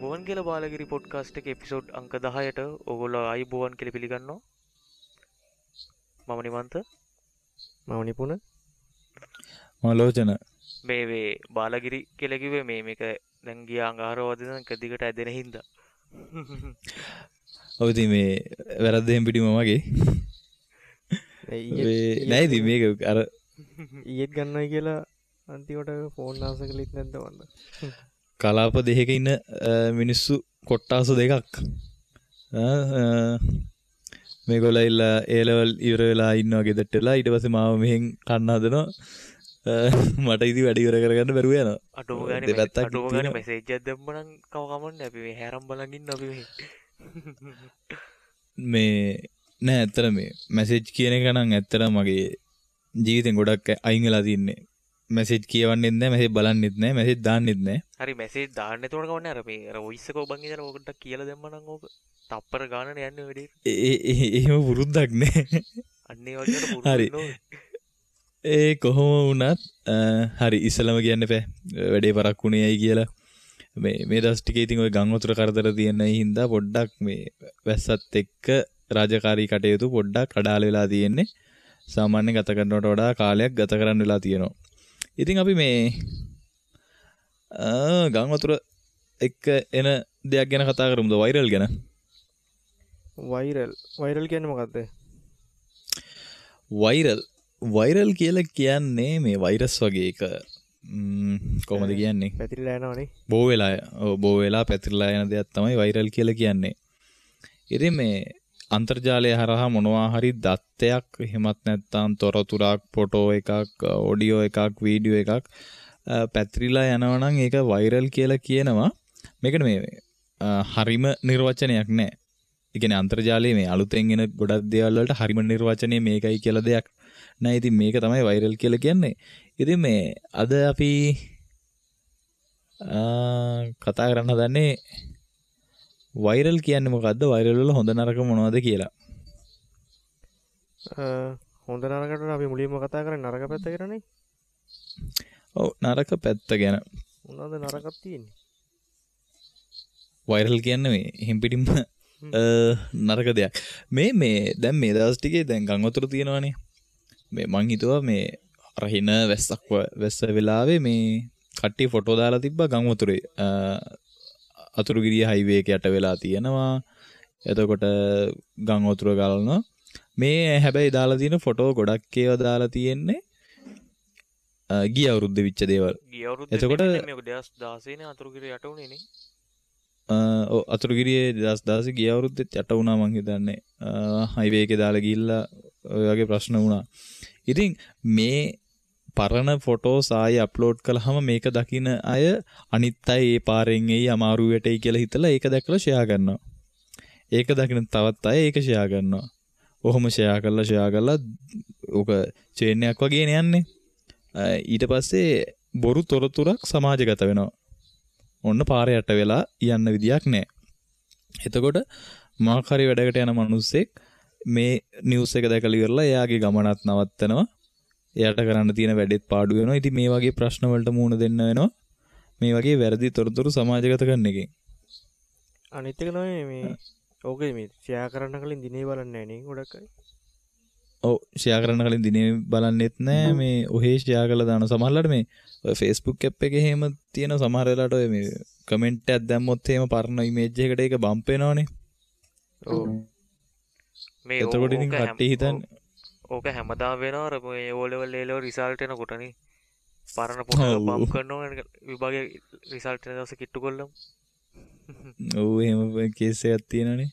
ආයුබෝවන් කියලා බාලගිරි පොඩ්කාස්ට් එකේ එපිසෝඩ් අංක 10ට ඕගොල්ලෝ ආයුබෝවන් කියලා පිළිගන්නවා. මම නිමන්ත. මම නිපුණ. මම ලෝචන. මේ මේ බාලගිරි කියලා කිව්වේ මේ මේක දැන් ගියා අඟහරුවා වදින එක දිගට ඇදෙන හින්දා. ඔව් ඉතින් මේ වැරද්ද එහෙම පිටිම මගේ. නෑ ඉතින් මේක අර ඊයේත් ගන්නයි කියලා අන්තිමට ෆෝන් ආස කළෙත් නැද්ද වන්ද? කලාප දෙකක ඉන්න මිනිස්සු කොට්ටාස දෙකක් මේගොල්ලෝ ඇවිල්ලා ඒ ලෙවල් ඉවර වෙලා ඉන්නවා ගෙදරට වෙලා. ඊට පස්සේ මාව මෙහෙන් කන්න හදනවා. මට ඉතින් වැඩ ඉවර කරගන්න බැරුව යනවා. අඩුම ගානේ මැසේජ් එකක් දැම්ම නම් කව කමන්නේ. අපි මේ හැරම් බලන් ඉන්න අපි මෙහෙ. මේ නෑ ඇත්තට මේ මැසේජ් කියන එක නම් ඇත්තට මගේ ජීවිතෙන් ගොඩක් අයින් වෙලා තින්නේ. මැසේජ් කියවන්නෙත් නෑ, මැසේජ් බලන්නෙත් නෑ, මැසේජ් දාන්නෙත් නෑ. හරි මැසේජ් දාන්න එතකොට කවන්නේ අර මේ අර වොයිස් එක ඔබන් ඉඳලා ඕකට කියලා දැම්ම නම් ඕක තප්පර ගානනේ යන්නේ වැඩේ. ඒ එහෙම පුරුද්දක් නෑ. අන්න ඒ වගේ අර පුරුදු වෙන්න. ඒ කොහොම වුණත් හරි ඉස්සලම කියන්න එපා වැඩේ පරක්කු වුණේ ඇයි කියලා. මේ මේ දවස් ටිකේ ඉතින් ඔය ගම් වතුර කරදර තියෙන හින්දා පොඩ්ඩක් මේ වැස්සත් එක්ක රාජකාරී කටයුතු පොඩ්ඩක් අඩාල වෙලා තියෙන්නේ. සාමාන්‍ය ගත කරනවට වඩා කාලයක් ගත කරන්න වෙලා තියෙනවා. ඉතින් අපි මේ ගම් වතුර එක්ක එන දෙයක් ගැන කතා කරමුද? වෛරල් ගැන. වෛරල් වෛරල් කියන්නේ මොකද්ද? වෛරල් වෛරල් කියලා කියන්නේ මේ වෛරස් වගේ එක කොහොමද කියන්නේ? පැතිරිලා යනවනේ. බෝ වෙලා ඔව් බෝ වෙලා පැතිරිලා යන දෙයක් තමයි වෛරල් කියලා කියන්නේ. ඉතින් මේ අන්තර්ජාලය හරහා මොනවා හරි දත්තයක් එහෙමත් නැත්නම් තොරතුරක්, ෆොටෝ එකක්, ඔඩියෝ එකක්, වීඩියෝ එකක් පැතිරිලා යනවා නම් ඒක වෛරල් කියලා කියනවා. මේකට මේ හරිම නිර්වචනයක් නෑ. ඒ කියන්නේ අන්තර්ජාලයේ මේ අලුතෙන් එන ගොඩක් දේවල් වලට හරිම නිර්වචනය මේකයි කියලා දෙයක් නෑ. ඉතින් මේක තමයි වෛරල් කියලා කියන්නේ. ඉතින් මේ අද අපි කතා කරන්න හදන්නේ වෛරල් කියන්නේ මොකද්ද? වෛරල් වල හොඳ නරක මොනවද කියලා. හොඳ නරකට අපි මුලින්ම කතා කරන්නේ නරක පැත්ත ගැනනේ. ඔව් නරක පැත්ත ගැන. මොනවද නරකක් තියෙන්නේ? වෛරල් කියන්නේ මේ එහෙම් පිටින්ම නරක දෙයක්. මේ මේ දැන් මේ දවස් ටිකේ දැන් ගම් වතුර තියෙනවනේ. මේ මං හිතුවා මේ අර හින වැස්සක් වැස්ස වෙලාවේ මේ කට්ටිය ෆොටෝ දාලා තිබ්බා ගම් වතුරේ. අතුරුගිරිය හයිවේ එක යට වෙලා තියෙනවා. එතකොට ගම් වතුර ගලනවා. මේ හැබැයි දාලා තියෙන ෆොටෝ ගොඩක් ඒවා දාලා තියෙන්නේ ගිය අවුරුද්දේ විච්ච දේවල්. ගිය අවුරුද්දේ එතකොට මේක 2016 නේ අතුරුගිරිය යට වුණේ නේ. ඔව් අතුරුගිරියේ 2016 ගිය අවුරුද්දෙත් යට වුණා මං හිතන්නේ. හයිවේ එකේ දාලා ගිහිල්ලා ඔය වගේ ප්‍රශ්න වුණා. ඉතින් මේ පරණ ෆොටෝස් ආයෙ අප්ලෝඩ් කළාම මේක දකින අය අනිත් අය ඒ පාරෙන් එයි අමාරු වැටෙයි කියලා හිතලා ඒක දැකලා ෂෙයා කරනවා. ඒක දකින තවත් අය ඒක ෂෙයා කරනවා. ඔහොම ෂෙයා කරලා ෂෙයා කරලා ඕක චේන් එකක් වගේනේ යන්නේ. ඊට පස්සේ බොරු තොරතුරක් සමාජගත වෙනවා. ඔන්න පාර යට වෙලා යන්න විදියක් නැහැ. එතකොට මොකක් හරි වැඩකට යන මිනිස්සෙක් මේ නිවුස් එක දැකලා ඉවරලා එයාගේ ගමනත් නවත්තනවා. එයාට කරන්න තියෙන වැඩෙත් පාඩු වෙනවා. ඉතින් මේ වගේ ප්‍රශ්න වලට මුහුණ දෙන්න වෙනවා. මේ වගේ වැරදි තොරතුරු සමාජගත කරන එකෙන්. අනිත් එක තමයි මේ ඕකේ මේ ෂෙයා කරන්න කලින් දිනේ බලන්නේ නැහැ නේ ගොඩක් අය. ඔව් ෂෙයා කරන්න කලින් දිනේ බලන්නෙත් නෑ. මේ ඔහේ ෂෙයා කරලා දාන සමහරවල්ලාට මේ ඔය Facebook app එකේ එහෙම තියෙන සමහර වෙලාවට ඔය මේ කමෙන්ට් එකක් දැම්මොත් එහෙම පරණ ඉමේජ් එකකට ඒක බම්ප් වෙනවනේ. ඔව්. මේ එතකොට ඉතින් කට්ටිය හිතන්නේ ඕක හැමදාම වෙනවා. අර මේ O level A level result එනකොට නේ පරණ පොත බම්ප් කරනවා විභාගයේ රිසල්ට් එන දවසේ කිට්ටු කොල්ලම. ඔව් එහෙම කේස් එකක් තියෙනවනේ.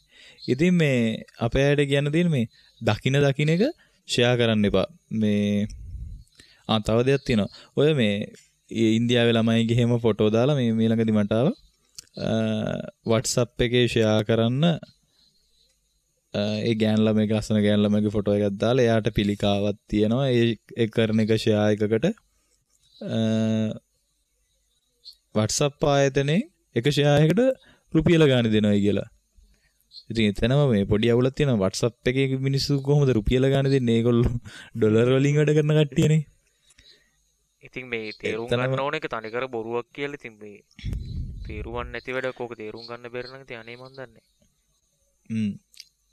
ඉතින් මේ අපේ අයට කියන්න තියෙන මේ දකින දකින එක ෂෙයා කරන්න එපා. මේ තව දෙයක් තියෙනවා. ඔය මේ ඉන්දියාවේ ළමයිගේ එහෙම ෆොටෝ දාලා මේ මේ ළඟදි මට ආවා WhatsApp එකේ ෂෙයා කරන්න ඒ ගෑන් ළමයිගේ ලස්සන ගෑන් ළමයිගේ ෆොටෝ එකක් දාලා එයාට පිළිකාවක් තියෙනවා. ඒ කරන එක ෂෙයා එකකට WhatsApp ආයතනයේ එක ෂෙයා එකකට රුපියල ගාණ දෙනවයි කියලා. ඉතින් එතනම මේ පොඩි අවුලක් තියෙනවා. WhatsApp එකේ මිනිස්සු කොහොමද රුපියල ගාණ දෙන්නේ? ඒගොල්ලෝ ඩොලර් වලින් වැඩ කරන කට්ටියනේ. ඉතින් මේ තේරුම් ගන්න ඕන එක තනිකර බොරුවක් කියලා. ඉතින් මේ තේරුම් නැති වැඩක් ඕක තේරුම් ගන්න බැරි නම් ඉතින් අනේ මන් දන්නේ.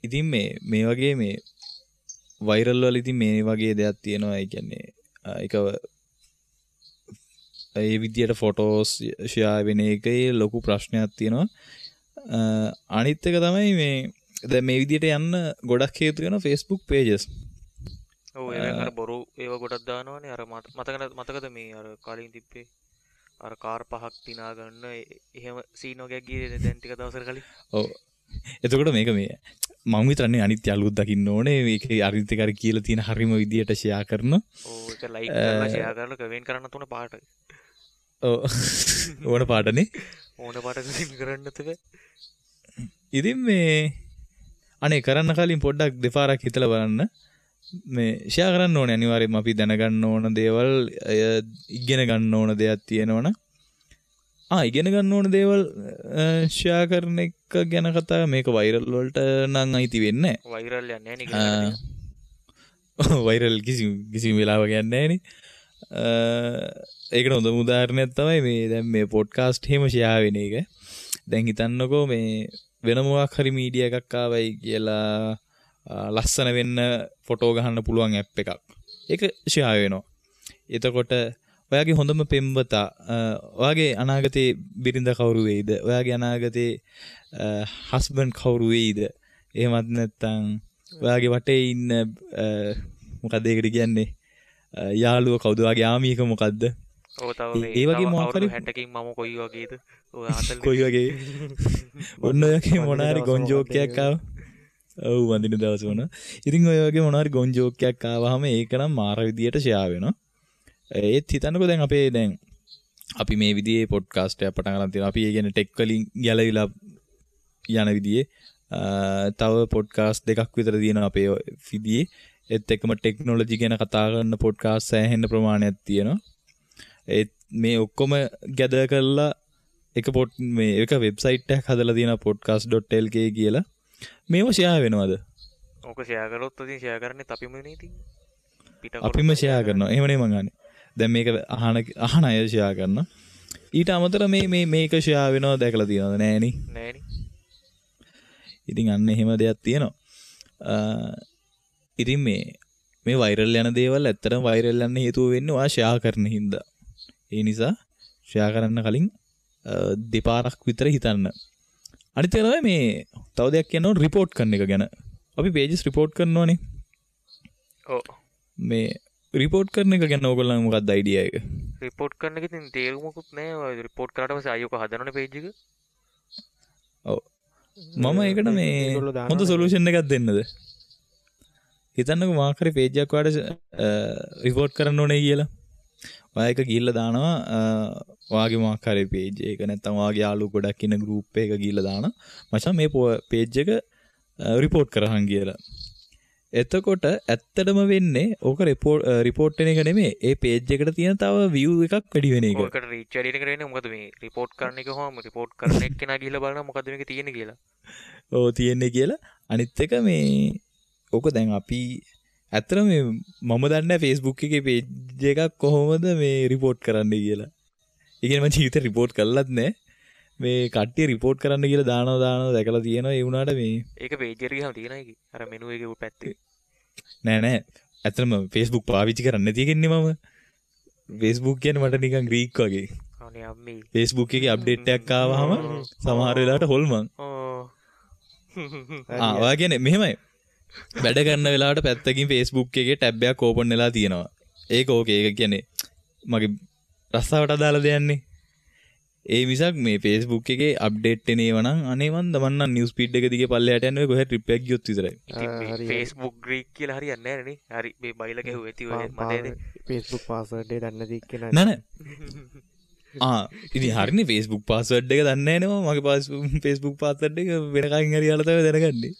ඉතින් මේ වගේ මේ වෛරල් වල ඉතින් මේ වගේ දෙයක් තියෙනවා. ඒ කියන්නේ ඒක ඒ විදියට ෆොටෝස් ෂෙයා වෙන එකේ ලොකු ප්‍රශ්නයක් තියෙනවා. අනිත් එක තමයි මේ දැන් මේ විදියට යන්න ගොඩක් හේතු වෙනවා Facebook pages. ඔව් ඒවෙන් අර බොරු ඒවා ගොඩක් දානවනේ. අර මතකද මේ අර කලින් තිබ්බේ අර කාර් පහක් තිනා ගන්න එහෙම සීන් වගේක් ගියේ දැන් ටික දවසකට කලින්. ඔව් එතකොට මේක මේ මං විතරනේ අනිත් යාළුවොත් දකින්න ඕනේ. මේක අනිත් එක අර කියලා තියෙන හරිම විදියට ෂෙයා කරන. ඔව් ඒක ලයික් කරලා ෂෙයා කරලා කමෙන්ට් කරන්න තුන පාට. ඔව් ඕන පාටනේ. ඕන පාට කමෙන්ට් කරන්න තිබේ. ඉතින් මේ අනේ කරන්න කලින් පොඩ්ඩක් දෙපාරක් හිතලා බලන්න. මේ ෂෙයා කරන්න ඕනේ අනිවාර්යයෙන්ම. අපි දැනගන්න ඕන දේවල්, ඉගෙන ගන්න ඕන දෙයක් තියෙනවනම් ඉගෙන ගන්න ඕන දේවල් ෂෙයා කරන එක ගැන කතා. මේක වෛරල් වලට නම් අයිති වෙන්නේ නැහැ. වෛරල් යන්නේ නැහැ නේ. වෛරල් කිසිම වෙලාවක යන්නේ නැහැ නේ. ඒකට හොඳම උදාහරණයක් තමයි මේ දැන් මේ පොඩ්කාස්ට් එහෙම ෂෙයා වෙන එක. දැන් හිතන්නකෝ මේ වෙන මොකක් හරි මීඩියා එකක් ආවයි කියලා ලස්සන වෙන්න ෆොටෝ ගහන්න පුළුවන් ඇප් එකක්. ඒක ෂෙයා වෙනවා. එතකොට ඔයාගේ හොඳම පෙම්වතා, ඔයාගේ අනාගතේ බිරිඳ කවුරු වෙයිද? ඔයාගේ අනාගතේ හස්බන්ඩ් කවුරු වෙයිද? එහෙමත් නැත්නම් ඔයාගේ වටේ ඉන්න මොකද්ද ඒකට කියන්නේ? යාළුව කවුද? ඔයාගේ ආමියක මොකද්ද? ඔව් තව මේ ඒ වගේ මොකක් හරි 60කින් මම කොයි වගේද? ඔය 40 කොයි වගේ? ඔන්න ඔය වගේ මොන හරි ගොන් ජෝක් එකක් ආවා. ඔව් වඳින දවස වුණා. ඉතින් ඔය වගේ මොන හරි ගොන් ජෝක් එකක් ආවහම ඒක නම් මාර විදියට ෂෙයා වෙනවා. ඒත් හිතන්නකෝ දැන් අපේ දැන් අපි මේ විදිහේ පොඩ්කාස්ට් එකක් පටන් ගන්න තියෙනවා. අපි ඒ කියන්නේ ටෙක් වලින් ගැලවිලා යන විදිහේ තව පොඩ්කාස්ට් දෙකක් විතර තියෙනවා අපේ විදිහේ. ඒත් එක්කම ටෙක්නොලොජි ගැන කතා කරන පොඩ්කාස්ට් සෑහෙන ප්‍රමාණයක් තියෙනවා. ඒත් මේ ඔක්කොම ගැදර් කරලා එක පොඩ් මේ එක වෙබ්සයිට් එකක් හදලා තියෙනවා podcast.lk කියලා. මේව ෂෙයා වෙනවද? ඕක ෂෙයා කරොත් ඉතින් ෂෙයා කරන්නේත් අපිම නේ ඉතින්. අපිම ෂෙයා කරනවා. එහෙම නේ මං අහන්නේ. දැන් මේක අහන අය ෂෙයා කරනවා. ඊට අමතර මේ මේ මේක ෂෙයා වෙනව දැකලා තියෙනවද? නෑනේ. නෑනේ. ඉතින් අන්න එහෙම දෙයක් තියෙනවා. ඉතින් මේ වෛරල් යන දේවල් ඇත්තටම වෛරල් යන්න හේතුව වෙන්නේ ඔයා ෂෙයා කරන හින්දා. ඒ නිසා ෂෙයා කරන්න කලින් දෙපාරක් විතර හිතන්න. අනිත් එක තමයි මේ තව දෙයක් කියන්න ඕන රිපෝට් කරන එක ගැන. අපි පේජස් රිපෝට් කරනවනේ. ඔව්. මේ රිපෝට් කරන එක ගැන ඕගොල්ලන් මොකක්ද අයිඩියා එක? රිපෝට් කරන එක ඉතින් තේරුමකුත් නෑ. ඔය රිපෝට් කරාට පස්සේ ආයෙ ඔක හදනවනේ පේජ් එක. ඔව්. මම ඒකට මේ හොඳ සොලියුෂන් එකක් දෙන්නද? හිතන්නකෝ මොකක් හරි පේජ් එකක් ඔයාලට රිපෝට් කරන්න ඕනේ කියලා. ඔයා එක ගිහිල්ලා දානවා ඔයාගේ මොකක් හරි පේජ් එක නැත්නම් ඔයාගේ යාළුවෝ ගොඩක් ඉන්න ගෲප් එක ගිහිල්ලා දානවා මචං මේ පේජ් එක රිපෝට් කරහන් කියලා. එතකොට ඇත්තටම වෙන්නේ ඕක රිපෝට් වෙන එක නෙමෙයි, ඒ පේජ් එකට තියෙන තව view එකක් වැඩි වෙන එක. ඔකට රීච් වැඩි වෙන එක නෙමෙයි. මොකද මේ රිපෝට් කරන එක කොහොම රිපෝට් කරන එක්කෙනා ගිහිල්ලා බලනවා මොකද මේක තියෙන්නේ කියලා. ඔව් තියෙන්නේ කියලා. අනිත් එක මේ ඕක දැන් අපි ඇත්තටම මේ මම දන්නේ නැහැ Facebook එකේ පේජ් එකක් කොහොමද මේ රිපෝට් කරන්නේ කියලා. ඒ කියන්නේ මම ජීවිතේ රිපෝට් කරලත් නැහැ. මේ කට්ටිය රිපෝට් කරන්න කියලා දානවා දැකලා තියෙනවා. ඒ වුණාට මේ ඒක පේජ් එකට ගියාම තියෙනවා ඒකේ. අර මෙනු එකේ පැත්තේ. නෑ නෑ. ඇත්තටම Facebook පාවිච්චි කරන්නේ නැති එකන්නේ මම. Facebook කියන්නේ මට නිකන් ග්‍රීක් වගේ. අනේ අම්මේ. Facebook එකේ අප්ඩේට් එකක් ආවහම සමහර වෙලාවට හොල්මන්. ආ ඔයා කියන්නේ මෙහෙමයි. වැඩ කරන වෙලාවට පැත්තකින් Facebook එකේ ටැබ් එකක් ඕපන් වෙලා තියෙනවා. ඒක ඕකේ. ඒක කියන්නේ මගේ රස්සාවට අදාළ දෙයක්නේ. ඒ මිසක් මේ Facebook එකේ අප්ඩේට් එන ඒවා නම් අනේ මන්ද මං නම් නිවුස් ෆීඩ් එක දිගේ පල්ලෙහාට යන්නේ ඔය කොහෙ ට්‍රිප් එකක් ගියොත් විතරයි. ඉතින් Facebook Greek කියලා හරියන්නේ නැහැ නේ. හරි මේ බයිලා ගැහුවා ඇති ඔය මතයනේ. Facebook password එක දන්නේ නැති එක්කෙනා. නෑ නෑ. ආ ඉතින් හරිනේ Facebook password එක දන්නේ නැහැ නේ මම. මගේ Facebook password එක වෙන කාගෙන් හරි අහලා තමයි දැනගන්නේ.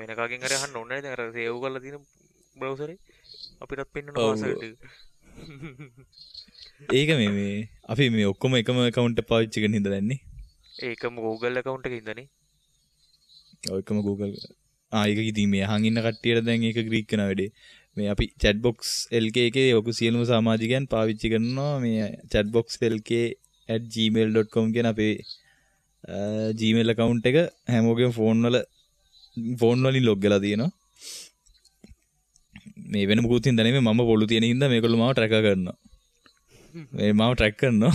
වෙන කාගෙන් හරි අහන්න ඕනේ නේද? අර සේව් කරලා තියෙන බ්‍රවුසර් එකේ අපිටත් පෙන්වන පාස්වර්ඩ් එක. ඒක මේ අපි මේ ඔක්කොම එකම ඇකවුන්ට් එක පාවිච්චි කරන හින්දා දැන්නේ. ඒකම Google account එකේ හින්දානේ. ඔව් එකම Google. ආ ඒක ඉතින් මේ අහන් ඉන්න කට්ටියට දැන් ඒක ග්‍රීක් වෙන වැඩේ. මේ අපි chatbox LK එකේ ඔක සියලුම සමාජිකයන් පාවිච්චි කරනවා මේ chatbox LK @gmail.com කියන අපේ Gmail account එක හැමෝගෙම ෆෝන් වලින් ලොග් වෙලා තියෙනවා. මේ වෙන මොකුත් හින්දා නෙමෙයි, මම පොළු තියෙන හින්දා මේගොල්ලෝ මාව ට්‍රැකර් කරනවා. මේ මාව ට්‍රැක් කරනවා.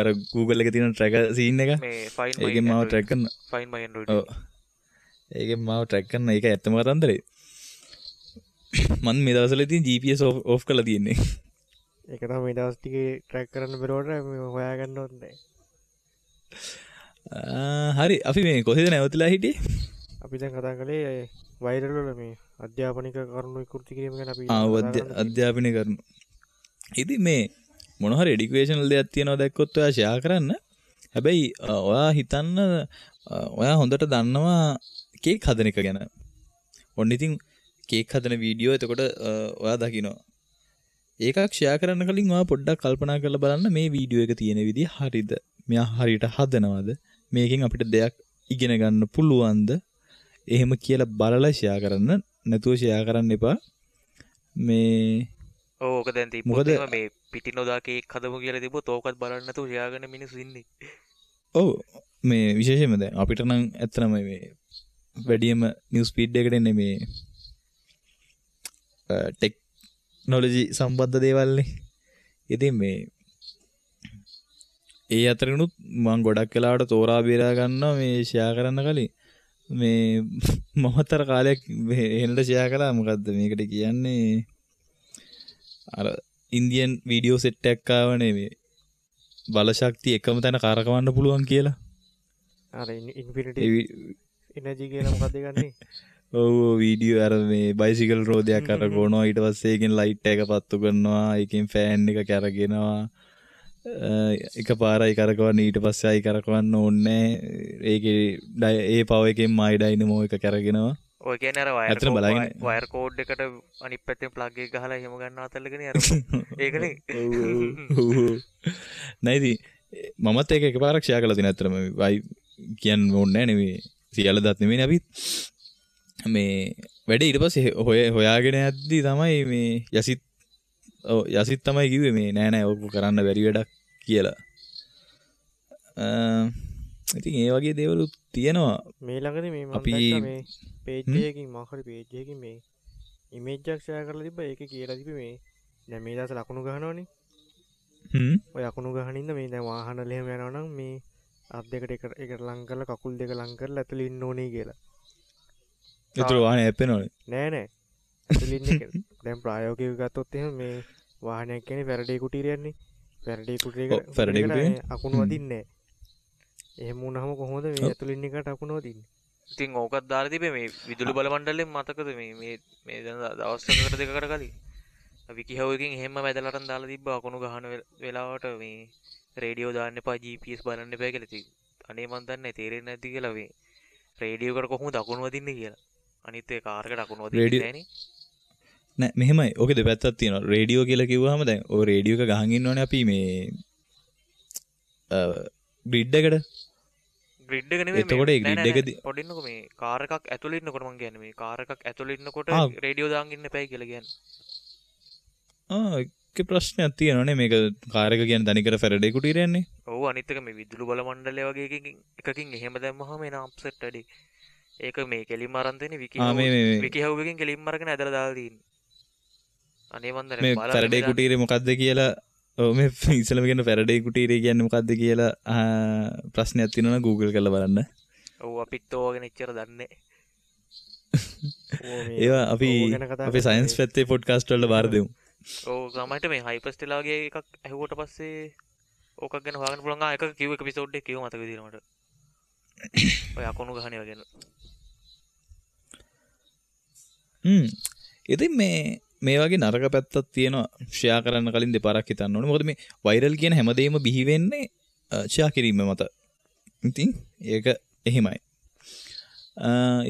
අර Google එකේ තියෙන ට්‍රැකර් සීන් එක. මේ find my ඒකෙන් මාව ට්‍රැක් කරනවා. Find my Android. ඔව්. ඒකෙන් මාව ට්‍රැක් කරන එක ඇත්තම කතන්දරේ. මම මේ දවස්වල ඉතින් GPS off කරලා තියෙන්නේ. ඒක තමයි මේ දවස් ටිකේ ට්‍රැක් කරන්න බැරුවට මේ හොයාගන්න ඕනේ නෑ. හරි, අපි මේ කොහෙද නැවතිලා හිටියේ? අපි දැන් කතා කළේ වෛරල් වල මේ අධ්‍යාපනික කරුණු විකෘති කිරීම ගැන අපි අධ්‍යාපනික කරුණු. ඉතින් මේ මොන හරි එඩියුකේෂනල් දෙයක් තියෙනවා දැක්කොත් ඔයා ෂෙයා කරන්න. හැබැයි ඔයා හිතන්න ඔයා හොඳට දන්නවා කේක් හදන එක ගැන. ඔන්න ඉතින් කේක් හදන වීඩියෝ එතකොට ඔයා දකිනවා. ඒකක් ෂෙයා කරන්න කලින් ඔයා පොඩ්ඩක් කල්පනා කරලා බලන්න මේ වීඩියෝ එක තියෙන විදිය හරිද? මෙයා හරියට හදනවද? මේකෙන් අපිට දෙයක් ඉගෙන ගන්න පුළුවන්ද? එහෙම කියලා බලලා ෂෙයා කරන්න. නැතුව ෂෙයා කරන්න එපා. මේ ඔව් ඔක දැන් තිබ්බොත් එහෙම මේ පිටි නොදා කේක් හදමු කියලා තිබ්බොත් ඕකත් බලන්න නැතුව ෂෙයා කරන මිනිස්සු ඉන්නේ. ඔව් මේ විශේෂයෙන්ම දැන් අපිට නම් ඇත්තටම මේ වැඩියම නිවුස් ෆීඩ් එකට එන්නේ මේ ටෙක්නොලොජි සම්බන්ධ දේවල්නේ. ඉතින් මේ ඒ අතරිනුත් මං ගොඩක් වෙලාවට තෝරා බේරා ගන්නවා මේ ෂෙයා කරන්න කලින්. මේ මමතර කාලයක් එහෙනට ෂෙයා කළා. මොකද්ද මේකට කියන්නේ, අර ඉන්දියන් වීඩියෝ සෙට් එකක් ආවනේ මේ බල ශක්තිය එකම තැන කරකවන්න පුළුවන් කියලා. අර ඉන්ෆිනිටි එනර්ජි කියලා මොකද්ද ගන්නේ? ඔව් වීඩියෝ අර මේ බයිසිකල් රෝදයක් කරකවනවා, ඊට පස්සේ ඒකෙන් ලයිට් එක පත්තු කරනවා, ඒකෙන් ෆෑන් එක කැරගෙනවා, එක පාරයි කරකවන්න, ඊට පස්සේ ආයි කරකවන්න ඕනේ නෑ. ඒකේ ඒ පවර් එකෙන් මයි ඩයිනමෝ එක කැරගෙනවා. ඔය කියන්නේ අර වයර් කෝඩ් එකට අනිත් පැත්තෙන් ප්ලග් එක ගහලා එහෙම ගන්න අතල්ලකනේ අර ඒකනේ. ඔව් ඔව් නෑ ඉතින් මමත් ඒක එකපාරක් ෂෙයා කරලා තියෙනවා. ඇත්තටම වයි කියන්න ඕනේ නෑ නෙමෙයි, සියල්ල දත් නෙමෙයිනේ අපි මේ වැඩේ. ඊට පස්සේ හොයාගෙන යද්දි තමයි මේ යසිත්, ඔව් යසිත් තමයි කිව්වේ මේ නෑ නෑ ඔක කරන්න බැරි වැඩක් කියලා. ඉතින් ඒ වගේ දේවලුත් තියෙනවා. මේ ළඟදී මේ මම දැක්කා මේ පේජ් එකකින් මොකක් හරි පේජ් එකකින් මේ ඉමේජ් එකක් ෂෙයා කරලා තිබ්බා. ඒකේ කියලා තිබ්බේ මේ දැන් මේ දවස් ලකුණු ගහනවනේ. ඔය ලකුණු ගහන ඉන්න මේ දැන් වාහන වල එහෙම යනවා නම් මේ අත් දෙකට එකට ලං කරලා කකුල් දෙක ලං කරලා ඇතුළේ ඉන්න ඕනේ කියලා. ඒතර වාහනේ හැප්පෙනවනේ. නෑ නෑ. ඇතුළේ ඉන්න එක. දැන් ප්‍රායෝගිකව ගත්තොත් එහෙම මේ වාහනයක් කියන්නේ ෆැරඩේ කුටීරයන්නේ. ෆැරඩේ කුටීරයකට අකුණු වදින්නේ නෑ. එහෙම වුණාම කොහොමද මේ ඇතුළේ ඉන්න එකට අකුණු වදින්නේ? ඉතින් ඕකත් දාලා තිබේ මේ විදුලි බල මණ්ඩලයෙන් මතකද මේ මේ මේ දැන් දවස් එකකට දෙකකට කලින් විකිහව් එකකින් එහෙම්ම වැදලා අරන් දාලා තිබ්බා අකුණු ගහන වෙලාවට මේ රේඩියෝ දාන්න එපා, GPS බලන්න එපා කියලා. ඉතින් අනේ මන් දන්නේ තේරෙන්නේ නැති කියලා මේ රේඩියෝ එකට කොහොමද අකුණු වදින්නේ කියලා. අනිත් ඒ කාර් එකට අකුණු වදින්නේ නෑනේ. නෑ මෙහෙමයි, ඕකේ දෙපැත්තක් තියෙනවා. රේඩියෝ කියලා කිව්වහම දැන් ඔය රේඩියෝ එක ගහන් ඉන්නවනේ අපි මේ ග්‍රිඩ් එකට. ග්‍රිඩ් එක නෙමෙයි. එතකොට ඒ ග්‍රිඩ් එකදී පොඩි ඉන්නකො මේ කාර් එකක් ඇතුළේ ඉන්නකොට මං කියන්නේ මේ කාර් එකක් ඇතුළේ ඉන්නකොට රේඩියෝ දාන් ඉන්න එපයි කියලා කියන්නේ. ඒකේ ප්‍රශ්නයක් තියෙනවනේ. මේක කාර් එක කියන්නේ තනිකර ෆැරඩේ කුටීරයන්නේ. ඔව් අනිත් එක මේ විදුලි බල මණ්ඩලය වගේ එකකින් එහෙම දැම්මහම එන අප්සෙට් වැඩි. ඒක මේ කෙලින්ම අරන් දෙන්නේ විකිහව් එකකින් කෙලින්ම අරගෙන ඇදලා දාලා තියෙන්නේ. අනේ මන් දන්නේ මේ ෆැරඩේ කුටීරේ මොකද්ද කියලා. ඔව් මේ ඉස්සෙල්ලම කියන ෆැරඩේ කුටීරේ කියන්නේ මොකද්ද කියලා ප්‍රශ්නයක් තියෙනවා නම් Google කරලා බලන්න. ඔව් අපිත් ඕවා ගැන එච්චර දන්නේ නැහැ. ඒවා අපි අපේ සයන්ස් පැත්තේ පොඩ්කාස්ට් වලට බාර දෙමු. ඔව් සමහරට මේ හයිපර්ස්ටෙලා වගේ එකක් ඇහුවට පස්සේ ඕකක් ගැන හොයාගන්න පුළුවන්. ආ එකක කිව්ව එපිසෝඩ් එක කිව්ව මතක විදියට මට. ඔය අකුණු ගහන ඒවා ගැන. ඉතින් මේ වගේ නරක පැත්තක් තියෙනවා. ෂෙයා කරන්න කලින් දෙපාරක් හිතන්න ඕනේ. මොකද මේ වෛරල් කියන හැමදේම බිහි වෙන්නේ ෂෙයා කිරීම මත. ඉතින් ඒක එහෙමයි.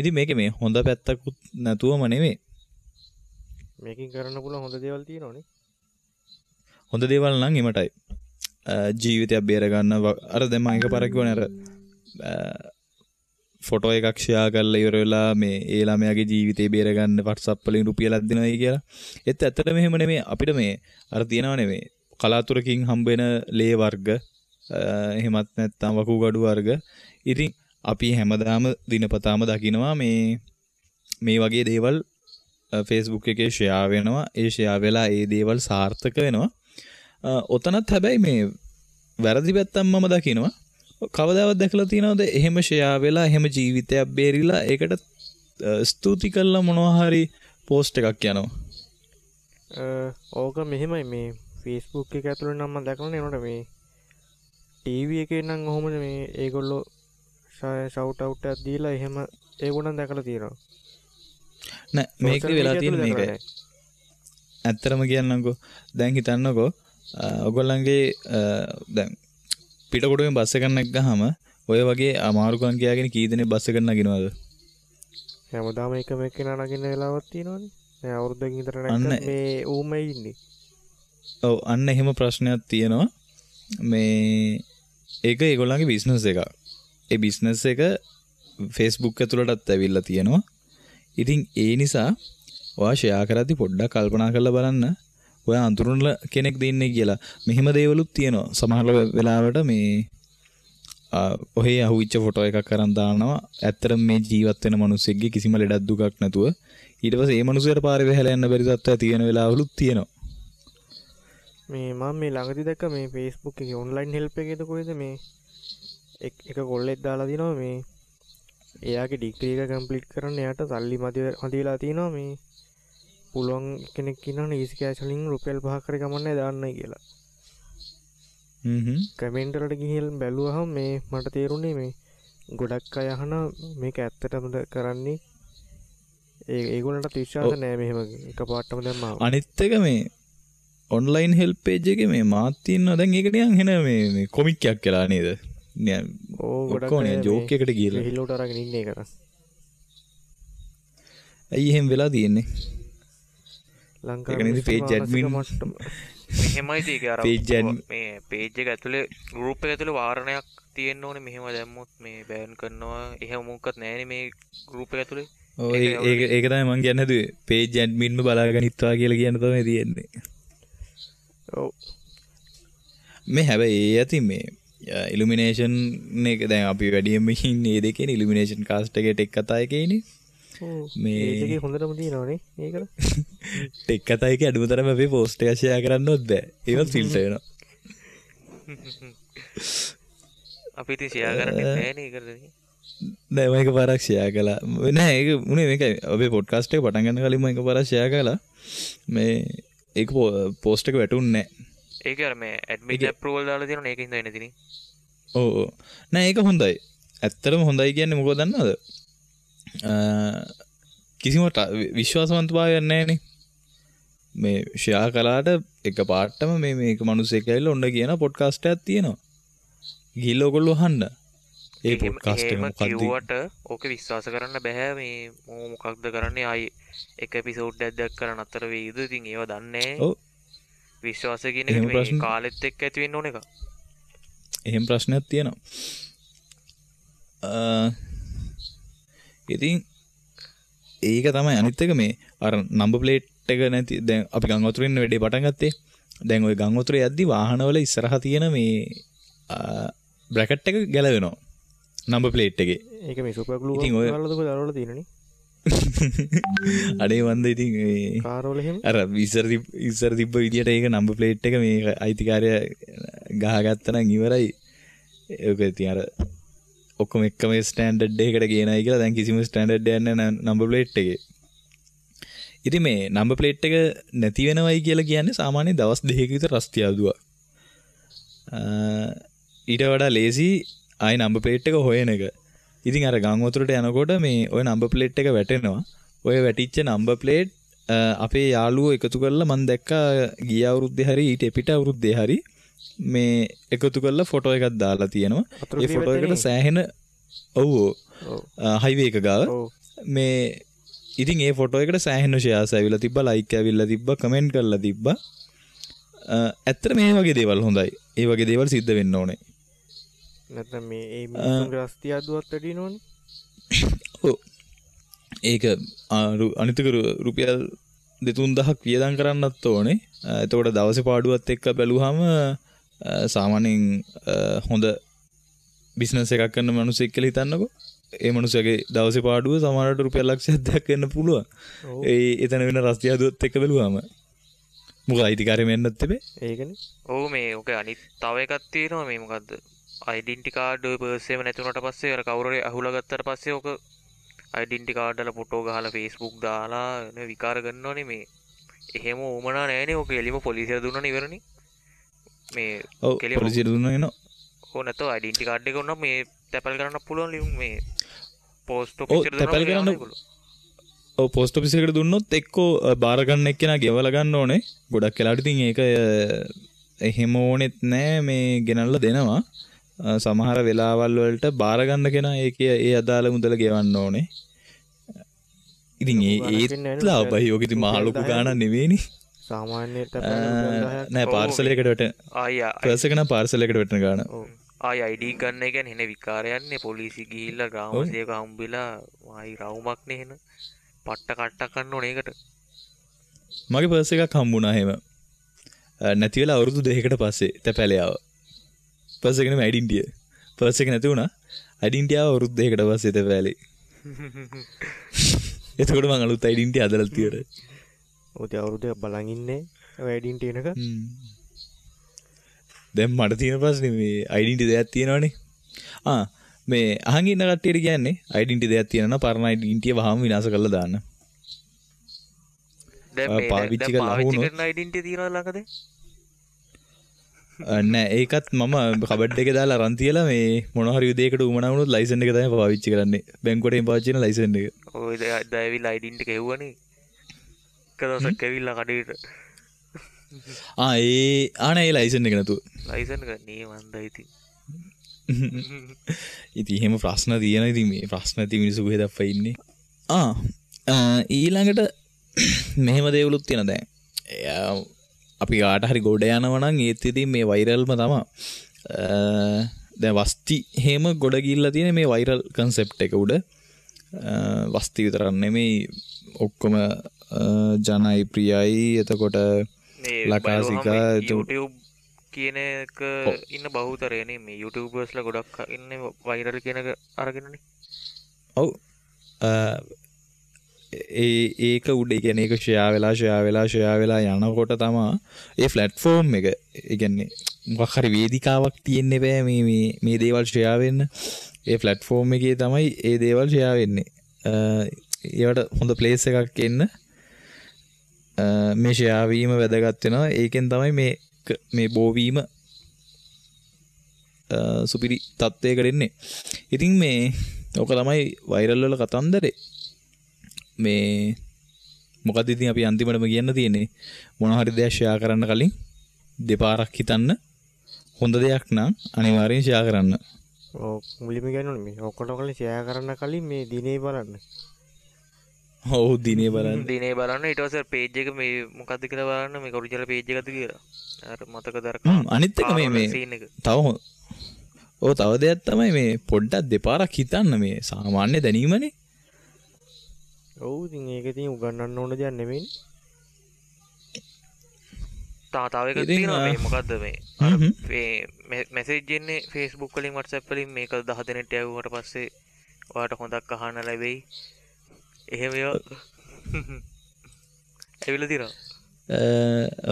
ඉතින් මේකේ මේ හොඳ පැත්තකුත් නැතුවම නෙමෙයි. මේකෙන් කරන්න පුළුවන් හොඳ දේවල් තියෙනවනේ. හොඳ දේවල් නම් එමටයි. ජීවිතයක් බේර ගන්න. අර දැන් මම එකපාරක් කිව්වනේ අර ෆොටෝ එකක් ෂෙයා කරලා ඉවර වෙලා මේ ඒ ළමයාගේ ජීවිතේ බේර ගන්න WhatsApp වලින් රුපියලක් දෙනවයි කියලා. ඒත් ඇත්තටම එහෙම නෙමෙයි. අපිට මේ අර තියෙනව නෙමෙයි කලාතුරකින් හම්බ වෙන ලේ වර්ග, එහෙමත් නැත්නම් වකුගඩු වර්ග. ඉතින් අපි හැමදාම දිනපතාම දකිනවා මේ මේ වගේ දේවල් Facebook එකේ ෂෙයා වෙනවා. ඒ ෂෙයා වෙලා ඒ දේවල් සාර්ථක වෙනවා. ඔතනත් හැබැයි මේ වැරදි පැත්තක් මම දකිනවා. කවදාවත් දැකලා තියෙනවද එහෙම ෂෙයා වෙලා එහෙම ජීවිතයක් බේරිලා ඒකට ස්තුති කළා මොනවා හරි පෝස්ට් එකක් යනවා? ඕක මෙහෙමයි, මේ Facebook එක ඇතුළේ නම් මම දැකලා නෑ. ඒනොට මේ ටීවී එකේ නම් ඔහොමද මේ ඒගොල්ලෝ ෂවුට් අවුට් එකක් දීලා එහෙම ඒගොල්ලන් දැකලා තියෙනවා. නෑ, මේක වෙලා තියෙන මේකයි. ඇත්තටම කියන්නම්කෝ, දැන් හිතන්නකෝ ඔයගොල්ලන්ගේ දැන් පිටකොටුවෙන් බස් එකක් නැග්ගහම ඔය වගේ අමාරුකම් කියාගෙන කී දෙනෙක් බස් එකට නගිනවද? හැමදාම එකම එක්කෙනා නගින වෙලාවක් තියෙනවනේ. දැන් අවුරුද්දකින් විතර නැග්ගත් මේ ඌමයි ඉන්නේ. ඔව්, අන්න එහෙම ප්‍රශ්නයක් තියෙනවා. මේ ඒක ඒගොල්ලන්ගේ බිස්නස් එකක්. ඒ බිස්නස් එක Facebook ඇතුළටත් ඇවිල්ලා තියෙනවා. ඉතින් ඒ නිසා ඔයා ෂෙයා කරද්දි පොඩ්ඩක් කල්පනා කරලා බලන්න ඔයා අඳුරන කෙනෙක් දෙන්නේ කියලා. මෙහෙම දේවලුත් තියෙනවා. සමහර වෙලාවට මේ ඔහේ අහුවිච්ච ෆොටෝ එකක් අරන් දානවා. ඇත්තටම මේ ජීවත් වෙන මිනිස්සෙක්ගේ කිසිම ලෙඩක් දුකක් නැතුව ඊට පස්සේ ඒ මිනිස්සයාට පාරේ වැහැලා යන්න බැරි තත්ත්වයක් තියෙන වෙලාවලුත් තියෙනවා. මේ මම මේ ළඟදී දැක්ක මේ Facebook එකේ ඔන්ලයින් හෙල්ප් එකේද කොහෙද මේ එක කොල්ලෙක් දාලා දිනවා මේ එයාගේ ඩිග්‍රී එක කම්ප්ලීට් කරන්න එයාට සල්ලි මදි වෙලා තියෙනවා. මේ පුළුවන් කෙනෙක් ඉන්නවනේ ඊසි කෑෂ් වලින් රුපියල් 5ක් හරි කමන්නේ දාන්නයි කියලා. කමෙන්ට් වලට ගිහින් බැලුවහම මේ මට තේරුණේ මේ ගොඩක් අය අහන මේක ඇත්තටමද කරන්නේ, ඒ ඒගොල්ලන්ට විශ්වාස නෑ මෙහෙම එකපාරටම දැම්මම. අනිත් එක මේ ඔන්ලයින් හෙල්ප් පේජ් එකේ මේ මාත් ඉන්නවා දැන් ඒක නිකන් හෙන මේ මේ කොමික් එකක් කියලා නේද? නිකන් ඔව් ගොඩක් ඔක්කොම නිකන් ජෝක් එකකට ගිහලා හිලුවට අරගෙන ඉන්නේ ඒක. ඇයි එහෙම වෙලා තියෙන්නේ? ලංකාවේ ඒක නේද පේජ් ඇඩ්මින් මෙහෙමයි ඒක අර මේ පේජ් එක ඇතුලේ ගෲප් එක ඇතුලේ වාරණයක් තියෙන්න ඕනේ. මෙහෙම දැම්මොත් මේ බෑන් කරනවා එහෙම මොකක්වත් නෑනේ මේ ගෲප් එක ඇතුලේ. ඔව් ඒක ඒක තමයි මං කියන්න හැදුවේ. පේජ් ඇඩ්මින්ම බලාගෙන ඉත්වා කියලා කියන්න තමයි තියෙන්නේ. ඔව් මේ හැබැයි ඒ ඇති මේ ඉලුමිනේෂන් එක දැන් අපි වැඩියෙන්ම ඉන්නේ ඒ දෙකේනේ. ඉලුමිනේෂන් කාස්ට් එකේ ටෙක් කතා එකේනේ. මේ ඒකේ හොඳටම තියෙනවනේ ඒකට. ටෙක් කතා එකේ අඩුම තරම අපේ පෝස්ට් එක ෂෙයා කරන්නවත් බෑ. ඒවත් ෆිල්ටර් වෙනවා. අපි ඉතින් ෂෙයා කරන්නේ නෑනේ ඒකට. නෑ මම එකපාරක් ෂෙයා කළා. නෑ ඒක උනේ මේකයි. අපේ පොඩ්කාස්ට් එක පටන් ගන්න කලින් මම එකපාරක් ෂෙයා කළා. මේ ඒක පෝස්ට් එක වැටුන්නේ නෑ. ඒක අර මේ ඇඩ්මින් ඇප්‍රූවල් දාලා තියෙනවනේ ඒක හින්දා එන්නේ ඉතින්. ඔව් ඔව්. නෑ ඒක හොඳයි. ඇත්තටම හොඳයි කියන්නේ මොකද දන්නවද? කිසිම විශ්වාසවන්ත භාවයක් නෑනේ. මේ ෂෙයා කළාට එක පාටම මේ මේක මිනිස්සෙක් ඇවිල්ලා ඔන්න කියන පොඩ්කාස්ට් එකක් තියෙනවා. ගිහිල්ලා ඔයගොල්ලෝ අහන්න. ඒ පොඩ්කාස්ට් එක මොකක්ද කිව්වට ඕක විශ්වාස කරන්න බෑ. මේ මොකක්ද කරන්නේ ආයි එක එපිසෝඩ් එකක් දැක්කම නතර වෙයිද? ඉතින් ඒව දන්නේ නෑ. ඔව්. විශ්වාසය කියන එක මේ කාලෙත් එක්ක ඇති වෙන්න ඕන එකක්. එහෙම ප්‍රශ්නයක් තියෙනවා. ඉතින් ඒක තමයි අනිත් එක මේ අර නම්බර් ප්ලේට් එක නැති දැන් අපි ගම් වතුරේ ඉන්න වැඩේ පටන් ගත්තේ. දැන් ওই ගම් වතුරේ යද්දි වාහනවල ඉස්සරහා තියෙන මේ බ්‍රැකට් එක ගැලවෙනවා නම්බර් ප්ලේට් එකේ. ඒක මේ සුපර් ග්ලූ එකක් ගාලාද කොහෙද අරවල තියෙනනේ. අනේ වන්ද ඉතින් මේ කාර් වල එහෙම අර ඉස්සර තිබ්බ විදියට ඒක නම්බර් ප්ලේට් එක මේ අයිතිකාරයා ගහගත්තා නම් ඉවරයි. ඒක ඉතින් අර ඔක්කොම එකම ස්ටෑන්ඩඩ් එකකට ගේනයි කියලා දැන් කිසිම ස්ටෑන්ඩඩ් එකක් නැහැ නම්බර් ප්ලේට් එකේ. ඉතින් මේ නම්බර් ප්ලේට් එක නැති වෙනවයි කියලා කියන්නේ සාමාන්‍ය දවස් දෙකක විතර රස්තියාදුවක්. ඊට වඩා ලේසි ආයි නම්බර් ප්ලේට් එක හොයන එක. ඉතින් අර ගම් වතුරට යනකොට මේ ඔය නම්බර් ප්ලේට් එක වැටෙනවා. ඔය වැටිච්ච නම්බර් ප්ලේට් අපේ යාළුවෝ එකතු කරලා මං දැක්කා ගිය අවුරුද්දේ හරි ඊට එපිට අවුරුද්දේ හරි මේ එකතු කරලා ෆොටෝ එකක් දාලා තියෙනවා. ඒ ෆොටෝ එකට සෑහෙන ඔව් හයිවේ එක ගාව මේ ඉතින් ඒ ෆොටෝ එකට සෑහෙන ෂෙයාර්ස් ඇවිල්ලා තිබ්බා, ලයික් ඇවිල්ලා තිබ්බා, කමෙන්ට් කරලා තිබ්බා. ඇත්තට මේ වගේ දේවල් හොඳයි. ඒ වගේ දේවල් සිද්ධ වෙන්න ඕනේ. නැත්නම් මේ ඒ මිනිස්සුන්ගේ රස්තියාදුවත් වැඩි වෙනවනේ. ඔව්. ඒක අනිත් එක රුපියල් 2-3000ක් වියදම් කරන්නත් ඕනේ. එතකොට දවසේ පාඩුවත් එක්ක බැලුවාම සාමාන්‍යයෙන් හොඳ බිස්නස් එකක් කරන මිනිහෙක් කියලා හිතන්නකෝ. ඒ මනුස්සයාගේ දවසේ පාඩුව සමහරවිට රුපියල් ලක්ෂයක් දෙකක් වෙන්න පුළුවන්. ඒ එතන වෙන රස්තියාදුවත් එක්ක බැලුවාම. මොකද අයිතිකාරයෙම යන්නත් එපේ. ඒකනේ. ඔව් මේ ඔක අනිත් තව එකක් තියෙනවා මේ මොකද්ද? අයිඩෙන්ටි කාඩ් ඔය පර්ස් එකම නැති වුණාට පස්සේ අර කවුරු හරි අහුලා ගත්තට පස්සේ ඔක අයිඩෙන්ටි කාඩ් වල ෆොටෝ ගහලා Facebook දාලා නේ විකාර කරනවනේ මේ. එහෙම උවමනා නෑනේ ඔක එලිම පොලිසියට දුන්නානේ ඉවරනේ. මේ ඔව් පොලිසියට දුන්නා එනවා. ඔව් නැතෝ අයිඩෙන්ටි කාඩ් එක උනා මේ තැපැල් කරන්න පුළුවන් ලියුම් මේ පෝස්ට් ඔෆිස් එකට තැපැල් කරන්න. ඔව් පෝස්ට් ඔෆිස් එකට දුන්නොත් එක්කෝ බාර ගන්න එක්කෙනා ගෙවලා ගන්න ඕනේ. ගොඩක් වෙලාවට ඉතින් ඒක එහෙම ඕනෙත් නෑ මේ ගෙනල්ලා දෙනවා. සමහර වෙලාවල් වලට බාර ගන්න කෙනා ඒකේ ඒ අදාළ මුදල ගෙවන්න ඕනේ. ඉතින් ඒත් ලාභයි. ඔක ඉතින් මහ ලොකු ගාණක් නෙවෙයිනේ. සාමාන්‍ය තැපැල් රුපියල් 10ක් නෑ පාර්සල් එකට වැටෙන. ආයි පර්ස් එක නම් පාර්සල් එකට වැටෙන ගාණ. ඔව් ආයි ID ගන්න එක කියන්නේ එන විකාරයන්නේ පොලිසි ගිහිල්ලා ග්‍රාම සේවක හම්බෙලා ආයි රවුමක් නේ එන. පට්ට කට්ටක් ගන්න ඕනේ ඒකට. මගේ පර්ස් එකක් හම්බුණා එහෙම. නැති වෙලා අවුරුදු දෙකකට පස්සේ තැපැලේ ආවා. පර්ස් එක නෙමෙයි අයිඩෙන්ටිය. පර්ස් එක නැති වුණා. අයිඩෙන්ටිය ආව අවුරුදු දෙකකට පස්සේ තැපැලේ. එතකොට මං අලුත් අයිඩෙන්ටිය හදලා තියෙනවා. ඔව් ඉතින් අවුරුදු දෙකක් බලන් ඉන්නේ ඔය අයිඩෙන්ටි එනක. දැන් මට තියෙන ප්‍රශ්නේ මේ අයිඩෙන්ටි දෙයක් තියෙනවනේ. ආ මේ අහන් ඉන්න කට්ටියට කියන්නේ අයිඩෙන්ටි දෙයක් තියෙනවා නම් පරණ අයිඩෙන්ටිය වහාම විනාශ කරලා දාන්න. දැන් මේ පාවිච්චි කරලා පාවිච්චි කරන අයිඩෙන්ටි තියෙනවද ළඟද? නෑ ඒකත් මම කබඩ් එකේ දාලා අරන් තියලා මේ මොන හරි දෙයකට උවමනා වුණොත් ලයිසන් එක තමයි පාවිච්චි කරන්නේ. බැංකුවට එහෙම පාවිච්චි කරන ලයිසන් එක. ඔය දැන් ඇවිල්ලා අයිඩෙන්ටි එක හෙව්වනේ. එක දවසක් ඇවිල්ලා කඩේට. ආ ඒ ආ නෑ ඒ ලයිසන් එක නැතුව. ලයිසන් එක නේ මන්දා ඉතින්. ඉතින් එහෙම ප්‍රශ්න තියෙන ඉතින් මේ ප්‍රශ්න ඇති මිනිස්සු කොහෙද අප්පා ඉන්නේ? ආ ඊළඟට මෙහෙම දේවලුත් තියෙනවා දැන්. එයා අපි කාට හරි ගොඩ යනවා නම් ඒත් ඉතින් මේ වෛරල්ම තමයි. දැන් වස්ති එහෙම ගොඩ ගිහිල්ලා තියෙන මේ වෛරල් කන්සෙප්ට් එක උඩ. වස්ති විතරක් නෙමෙයි ඔක්කොම ජනයි ප්‍රියයි එතකොට ලකාසිකා YouTube කියන එක ඉන්න බහුතරය නේ මේ YouTubersලා ගොඩක් ඉන්නේ වෛරල් කියන එක අරගෙනනේ. ඔව් ඒ ඒක උඩ ඒ කියන්නේ ඒක ෂෙයා වෙලා ෂෙයා වෙලා ෂෙයා වෙලා යනකොට තමා ඒ ප්ලැට්ෆෝම් එක ඒ කියන්නේ මොකක් හරි වේදිකාවක් තියෙන්න බෑ මේ මේ මේ දේවල් ෂෙයා වෙන්න. ඒ ප්ලැට්ෆෝම් එකේ තමයි ඒ දේවල් ෂෙයා වෙන්නේ. ඒවට හොඳ ප්ලේස් එකක් එන්න මේ ෂෙයා වීම වැදගත් වෙනවා. ඒකෙන් තමයි මේ මේ බෝ වීම සුපිරි තත්ත්වයකට එන්නේ. ඉතින් මේ ඕක තමයි වෛරල් වල කතන්දරේ. මේ මොකද ඉතින් අපි අන්තිමටම කියන්න තියෙන්නේ මොන හරි දෙයක් ෂෙයා කරන්න කලින් දෙපාරක් හිතන්න. හොඳ දෙයක් නම් අනිවාර්යෙන් ෂෙයා කරන්න. ඔව් මුලින්ම කියන්න ඕනේ මේ ඔක්කොට කලින් ෂෙයා කරන්න කලින් මේ දිනේ බලන්න. ඔව් දිනේ බලන්න. දිනේ බලන්න ඊට පස්සේ පේජ් එක මේ මොකද්ද කියලා බලන්න මේක ඔරිජිනල් පේජ් එකද කියලා. අර මතකද අර අනිත් එක මේ මේ තව ඔව් තව දෙයක් තමයි මේ පොඩ්ඩක් දෙපාරක් හිතන්න මේ සාමාන්‍ය දැනීමනේ. ඔව් ඉතින් ඒක ඉතින් උගන්වන්න ඕන දෙයක් නෙමෙයිනේ. තව එකක් තියෙනවා මේ මොකද්ද මේ අර මේ මැසේජ් එන්නේ Facebook වලින් WhatsApp වලින් මේක 10 දෙනෙක්ට යවුවට පස්සේ ඔයාට හොඳක් අහන්න ලැබෙයි. එහෙම ඒවා ඇවිල්ලා තියෙනවා.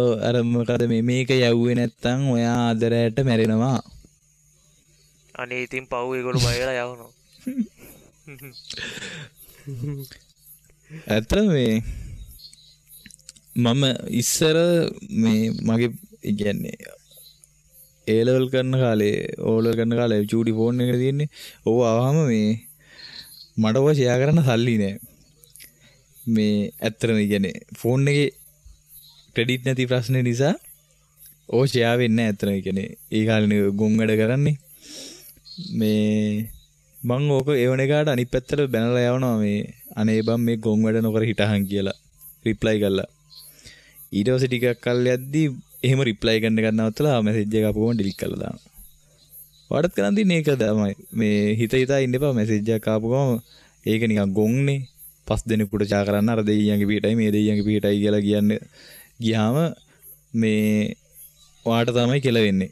ඔව් අර මොකද මේ මේක යවුවේ නැත්තම් ඔයා අද රැට මැරෙනවා. අනේ ඉතින් පව් ඒගොල්ලෝ බය වෙලා යවනවා. ඇත්තටම මේ මම ඉස්සර මේ මගේ ඒ කියන්නේ ඒ ලෙවල් කරන කාලේ ඕ ලෙවල් කරන කාලේ චූටි ෆෝන් එකේ තියෙන්නේ. ඕව ආවම මේ මට ඔය ෂෙයා කරන්න සල්ලි නෑ. මේ ඇත්තටම ඒ කියන්නේ ෆෝන් එකේ ක්‍රෙඩිට් නැති ප්‍රශ්නේ නිසා ඕ ෂෙයා වෙන්නේ නෑ ඇත්තටම. ඒ කියන්නේ ඒ කාලේ ගොන් වැඩ කරන්නේ. මේ මං ඕක එවන එකාට අනිත් පැත්තට බැනලා යවනවා මේ අනේ බං මේ ගොන් වැඩ නොකර හිටහන් කියලා රිප්ලයි කරලා. ඊට පස්සේ ටිකක් කල් යද්දි එහෙම රිප්ලයි කරන එකක් නවත්තලා මැසේජ් එක ආපු ගමන් ඩිලීට් කරලා දානවා. ඔයාටත් කරන් තින්නේ ඒක තමයි. මේ හිත හිතා ඉන්න එපා මැසේජ් එකක් ආපු ගමන් ඒක නිකන් ගොන්නේ. පස් දෙනෙකුට චා කරන්න අර දෙයියන්ගේ පිටයි මේ දෙයියන්ගේ පිටයි කියලා කියන්න ගියාම මේ ඔයාට තමයි කියලා වෙන්නේ.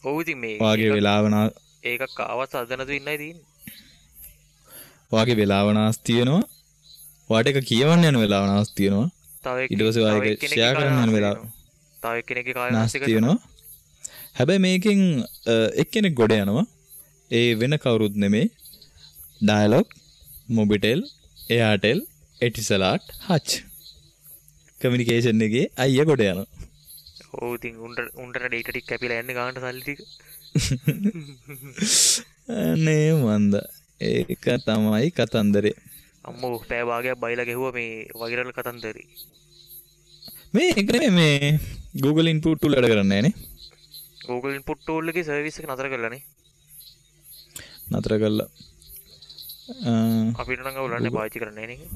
ඔව් ඉතින් මේ ඔයාගේ වෙලාව ඒකක් ආවත් අද නැතුව ඉන්නයි තියෙන්නේ. ඔයාගේ වෙලාව නාස්ති වෙනවා. ඔයාට ඒක කියවන්න යන වෙලාව නාස්ති වෙනවා. තව ඊට පස්සේ ඔයා ඒක ෂෙයා කරන්න යන වෙලාව තව එක්කෙනෙක්ගේ කාලය නාස්ති වෙනවා. හැබැයි මේකෙන් එක්කෙනෙක් ගොඩ යනවා. ඒ වෙන කවුරුත් නෙමෙයි. Dialog, Mobitel, Airtel, Etisalat, Hutch. Communication එකේ අයියා ගොඩ යනවා. ඔව් ඉතින් උන්ට ඩේටා ටික කැපිලා යන්නේ ගානට සල්ලි ටික. අනේ මන්ද ඒක තමයි කතන්දරේ. අම්මෝ පැය භාගයක් බයිලා ගැහුවා මේ වෛරල් කතන්දරේ. මේ ඒක නෙමෙයි මේ Google input tool වැඩ කරන්නේ නෑනේ. Google input tool එකේ සර්විස් එක නතර කළා නේ. නතර කළා. අපිට නම් අවුලක් නෑ පාවිච්චි කරන්නේ නෑ නේ.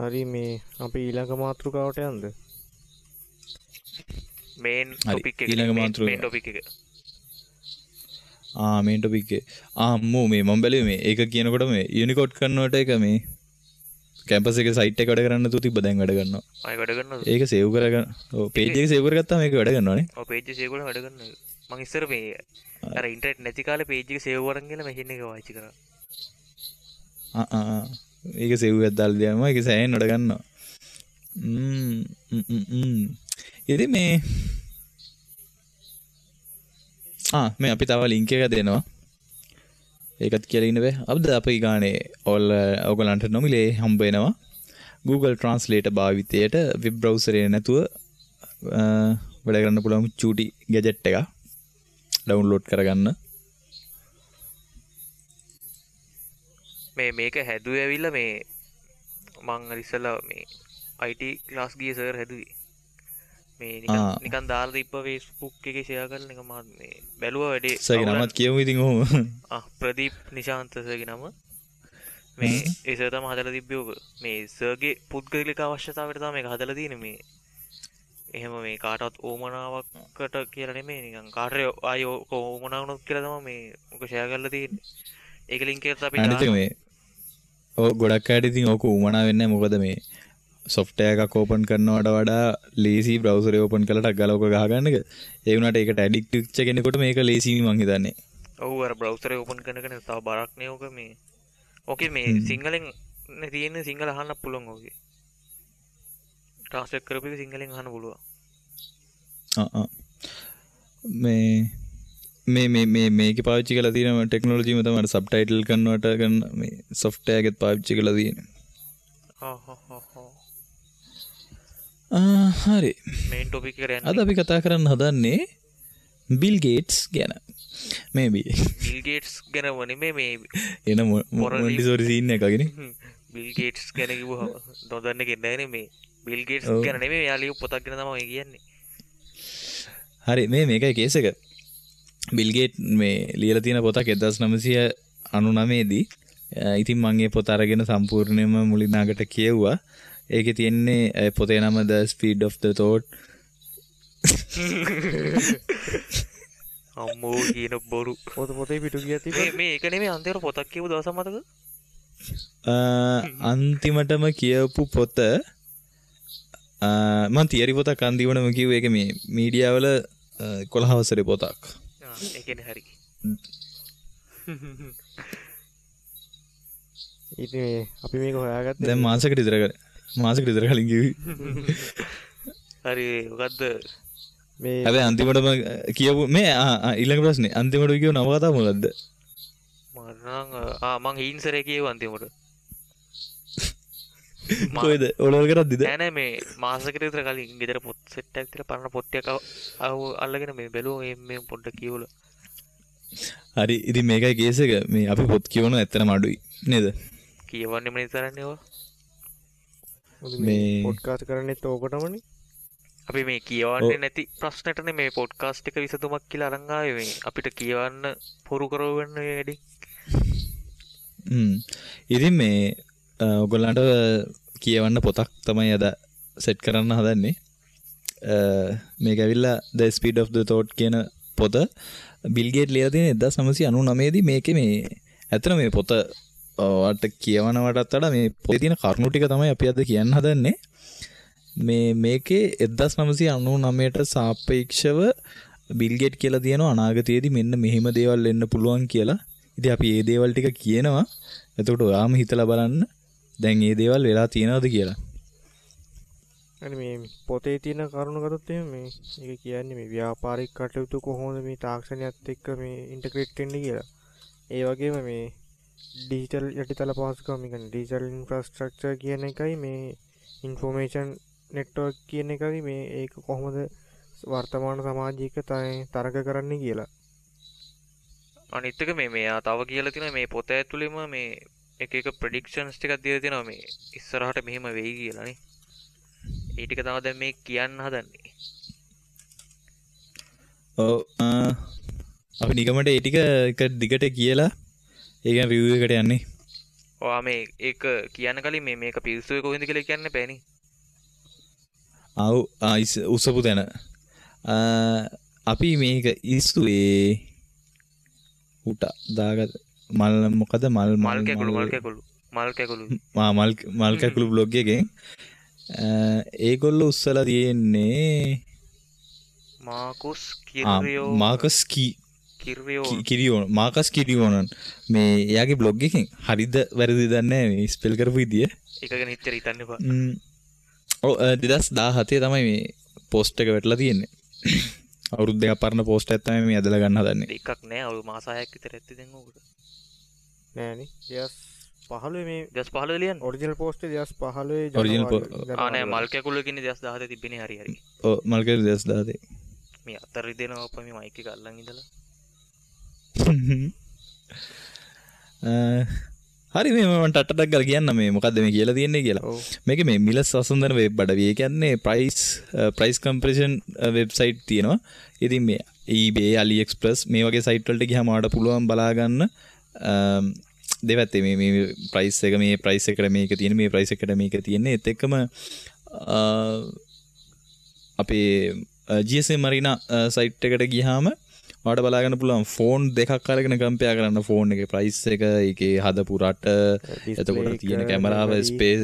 හරි මේ අපි ඊළඟ මාතෘකාවට යන්නද? මේන් ටොපික් එක ඊළඟ මාතෘකාව මේන් ටොපික් එක. ආ මේන් ටොපික් එක. ආ අම්මෝ මේ මම බැලුවේ මේ ඒක කියනකොට මේ යුනිකෝඩ් කන්වර්ටර් එක මේ කැම්පස් එකේ සයිට් එක වැඩ කරන්න නැතුව තිබ්බ දැන් වැඩ කරනවා. ආයෙ වැඩ කරනවද? ඒක සේව් කරගන්න. ඔව් පේජ් එක සේව් කරගත්තාම ඒක වැඩ කරනවා නේ. ඔව් පේජ් එක සේව් කරලා වැඩ කරනවා. මං ඉස්සර මේ අර ඉන්ටර්නෙට් නැති කාලේ පේජ් එක සේව් කරන් ගිහලා මැෂින් එක පාවිච්චි කරා. ආ ආ ඒක සේව් එකක් දාලා දියාම ඒක සෑහෙන වැඩ ගන්නවා. ඉතින් මේ මේ අපි තව ලින්ක් එකක් දෙනවා. ඒකත් කියලා ඉන්න බෑ. අද අපි ගානේ ඔයගලන්ට නොමිලේ හම්බ වෙනවා. Google Translator භාවිතයට වෙබ් බ්‍රවුසර් එක නැතුව වැඩ කරන්න පුළුවන් චූටි ගැජට් එකක් ඩවුන්ලෝඩ් කරගන්න. මේ මේක හැදුවේ ඇවිල්ලා මේ මං අර ඉස්සෙල්ලා මේ IT class ගිය සර් හැදුවේ. මේ නිකන් දාලා තිබ්බ Facebook එකේ ෂෙයා කරලා නිකන් මම මේ බැලුවා වැඩේ. සර්ගේ නමත් කියමු ඉතින් ඔහොම. ප්‍රදීප් නිශාන්ත සර්ගේ නම. මේ ඒ සර් තමයි හදලා තිබ්බේ ඔක. මේ සර්ගේ පුද්ගලික අවශ්‍යතාවයට තමයි මේක හදලා තියෙන්නේ මේ. එහෙම මේ කාටවත් ඕමනාවකට කියලා නෙමෙයි නිකන් කාට හරි ආයි ඔක ඕමනා වුණොත් කියලා තමයි මේ ඔක ෂෙයා කරලා තියෙන්නේ. ඒක ලින්ක් එකත් අපි අනිත් එක මේ ඔව් ගොඩක් අයට ඉතින් ඕක උවමනා වෙන්නේ නැහැ. මොකද මේ සොෆ්ට්වෙයාර් එකක් ඕපන් කරනවට වඩා ලේසි බ්‍රවුසර් එක ඕපන් කරලා ටක් ගාලා ඕක ගහගන්න එක. ඒ වුණාට ඒකට ඇඩික්ට් වෙච්ච කෙනෙකුට මේක ලේසියි මං හිතන්නේ. ඔව් අර බ්‍රවුසර් එක ඕපන් කරන එක තව බරක් නේ ඕක මේ. ඕකේ මේ සිංහලෙන් නේ තියෙන්නේ, සිංහල අහන්න පුළුවන් ඕකේ. ට්‍රාන්ස්ලේට් කරපු එක සිංහලෙන් අහන්න පුළුවන්. ආ මේ මේ මේ මේ මේකේ පාවිච්චි කරලා තියෙන ටෙක්නොලොජිම තමයි අර සබ්ටයිටල් කන්වර්ටර් කරන මේ සොෆ්ට්වෙයාර් එකෙත් පාවිච්චි කරලා තියෙන්නේ. හරි. මේන් ටොපික් එකට යන්න. අද අපි කතා කරන්න හදන්නේ බිල් ගේට්ස් ගැන. මේ බිල් ගේට්ස් ගැන නෙමෙයි මේ එන මොන්ටිසෝරි සීන් එකක් වගේනේ. බිල් ගේට්ස් ගැන කිව්වහම නොදන්න කෙනෙක් නෑනේ මේ. බිල් ගේට්ස් ගැන නෙමෙයි එයා ලියපු පොතක් ගැන තමයි ඔය කියන්නේ. හරි මේ මේකයි කේස් එක. බිල් ගේට් මේ ලියලා තියෙන පොතක් 1999 දී. ඉතින් මං ඒ පොත අරගෙන සම්පූර්ණයෙන්ම මුලින් අගට කියෙව්වා. ඒකේ තියෙන්නේ පොතේ නම The Speed of the Thought. අම්මෝ කියන බොරු. පොත පොතේ පිටු ගියා තිබ්බා. මේ ඒක නෙමෙයි අන්තිමට පොතක් කියපු දවසක් මතකද? අන්තිමටම කියපු පොත මං තියරි පොතක් අන්තිමටම කිව්වේ. ඒක මේ මීඩියා වල 11 වසරේ පොතක්. ඒ කියන්නේ හරි. ඉතින් මේ අපි මේක හොයාගත්තේ දැන් මාසෙකට විතර මාසෙකට විතර කලින් කිව්වේ. හරි මොකද්ද මේ හැබැයි අන්තිමටම කියපු මේ ඊළඟ ප්‍රශ්නේ අන්තිමට කියව නවකතාව මොකද්ද? මට නම් මං හීන්සරේ කියුවා අන්තිමට. කොහෙද ඔලවල් කරද්දිද? නෑ නෑ මේ මාසෙකට විතර කලින් ගෙදර පොත් සෙට් එකක් තියලා පරණ පොත් ටිකක් අල්ලගෙන මේ බැලුවා මේ පොඩ්ඩක් කියවලා. හරි ඉතින් මේකයි කේස් එක. මේ අපි පොත් කියවනවා ඇත්තටම අඩුයි නේද? කියවන්නෙම නේ තරන්නේ ඔය. මේ පොඩ්කාස්ට් කරන්නෙත් ඕකටමනේ. අපි මේ කියවන්නේ නැති ප්‍රශ්නෙටනේ මේ පොඩ්කාස්ට් එක විසඳුමක් කියලා අරන් ආවේ. මේ අපිට කියවන්න පොරු කරවන්න මේ වැඩි. ඉතින් මේ ඔයගොල්ලන්ට කියවන්න පොතක් තමයි අද සෙට් කරන්න හදන්නේ. මේක ඇවිල්ලා The Speed of the Thought කියන පොත බිල් ගේට් ලියලා තියෙන 1999 දී. මේකේ මේ ඇත්තට මේ පොත ඔයාලට කියවනවටත් වඩා මේ පොතේ තියෙන කරුණු ටික තමයි අපි අද කියන්න හදන්නේ. මේ මේකේ 1999ට සාපේක්ෂව බිල් ගේට් කියලා තියෙනවා අනාගතයේදී මෙන්න මෙහෙම දේවල් වෙන්න පුළුවන් කියලා. ඉතින් අපි මේ දේවල් ටික කියනවා. එතකොට ඔයාම හිතලා බලන්න දැන් මේ දේවල් වෙලා තියෙනවද කියලා. අනේ මේ පොතේ තියෙන කරුණු ගත්තොත් එහෙම මේ ඒක කියන්නේ මේ ව්‍යාපාරික කටයුතු කොහොමද මේ තාක්ෂණයත් එක්ක මේ ඉන්ටග්‍රේට් වෙන්නේ කියලා. ඒ වගේම මේ ඩිජිටල් යටිතල පහසුකම්, ඒ කියන්නේ ඩිජිටල් ඉන්ෆ්‍රාස්ට්‍රක්චර් කියන එකයි මේ ඉන්ෆෝමේෂන් නෙට්වර්ක් කියන එකයි මේ ඒක කොහොමද වර්තමාන සමාජයක තරග කරන්නේ කියලා. අනිත් එක මේ මෙයා තව කියලා තියෙනවා මේ පොත ඇතුළෙම මේ එක එක ප්‍රෙඩික්ෂන්ස් ටිකක් දීලා තියෙනවා මේ ඉස්සරහට මෙහෙම වෙයි කියලා නේ. ඒ ටික තමයි දැන් මේ කියන්න හදන්නේ. ඔව් අපි නිගමට ඒ ටික එක දිගට කියලා ඒ කියන්නේ රිවිව් එකට යන්නේ. ඔයා මේ ඒක කියන්න කලින් මේ මේක පිස්සුවේ කොහෙන්ද කියලා කියන්න එපා නේ. ආව් උසපු තැන. අපි මේක ඉස්සුවේ උට දාගත මල් මොකද මල් මල් කැකුළු මල් කැකුළු මල් කැකුළු මල් මල් කැකුළු බ්ලොග් එකෙන් ඒගොල්ලෝ උස්සලා තියෙන්නේ මාකස් කිරියෝ මාකස් කිරියෝ මාකස් කිරියෝනන් මේ එයාගේ බ්ලොග් එකෙන් හරිද වැරදිද දන්නේ නැහැ මේ ස්පෙල් කරපු විදිය. ඒක ගැන හිතර හිතන්න එපා. ඔව් 2017 තමයි මේ පෝස්ට් එක වැටලා තියෙන්නේ. අවුරුදු දෙකක් පරණ පෝස්ට් එකක් තමයි මේ ඇදලා ගන්න හදන්නේ. දෙකක් නෑ අවුරුදු මාස 6ක් විතර ඇත්තේ දැන් ඕකට. නෑනේ 2015 මේ 2015 ලියන්නේ. ඔරිජිනල් පෝස්ට් එක 2015 ඔරිජිනල් ආ නෑ මල් කැකුළු කියන්නේ 2017 තිබ්බනේ. හරි හරි. ඔව් මල් කැකුළු 2017. මේ අතර රිදෙනවා අප්පා මේ මයික් එක අල්ලන් ඉඳලා. හරි මේ මම ටට්ටක් ගාලා කියන්න මේ මොකද්ද මේ කියලා තියෙන්නේ කියලා. මේක මේ මිල සසඳන වෙබ් අඩවිය. ඒ කියන්නේ ප්‍රයිස් කම්පැරිසන් වෙබ්සයිට් තියෙනවා. ඉතින් මේ eBay, AliExpress මේ වගේ සයිට් වලට ගියාම ඔයාලට පුළුවන් බලා ගන්න දෙපැත්තේ මේ මේ ප්‍රයිස් එක මේ ප්‍රයිස් එකට මේක තියෙන මේ ප්‍රයිස් එකට මේක තියෙන්නේ. ඒත් එක්කම අපේ GSM Marina site එකට ගියාම ඔයාලට බලා ගන්න පුළුවන් ෆෝන් දෙකක් අරගෙන කම්පෙයාර් කරන්න ෆෝන් එකේ ප්‍රයිස් එක, ඒකේ හදපු රට, එතකොට තියෙන කැමරාව, ස්පේස්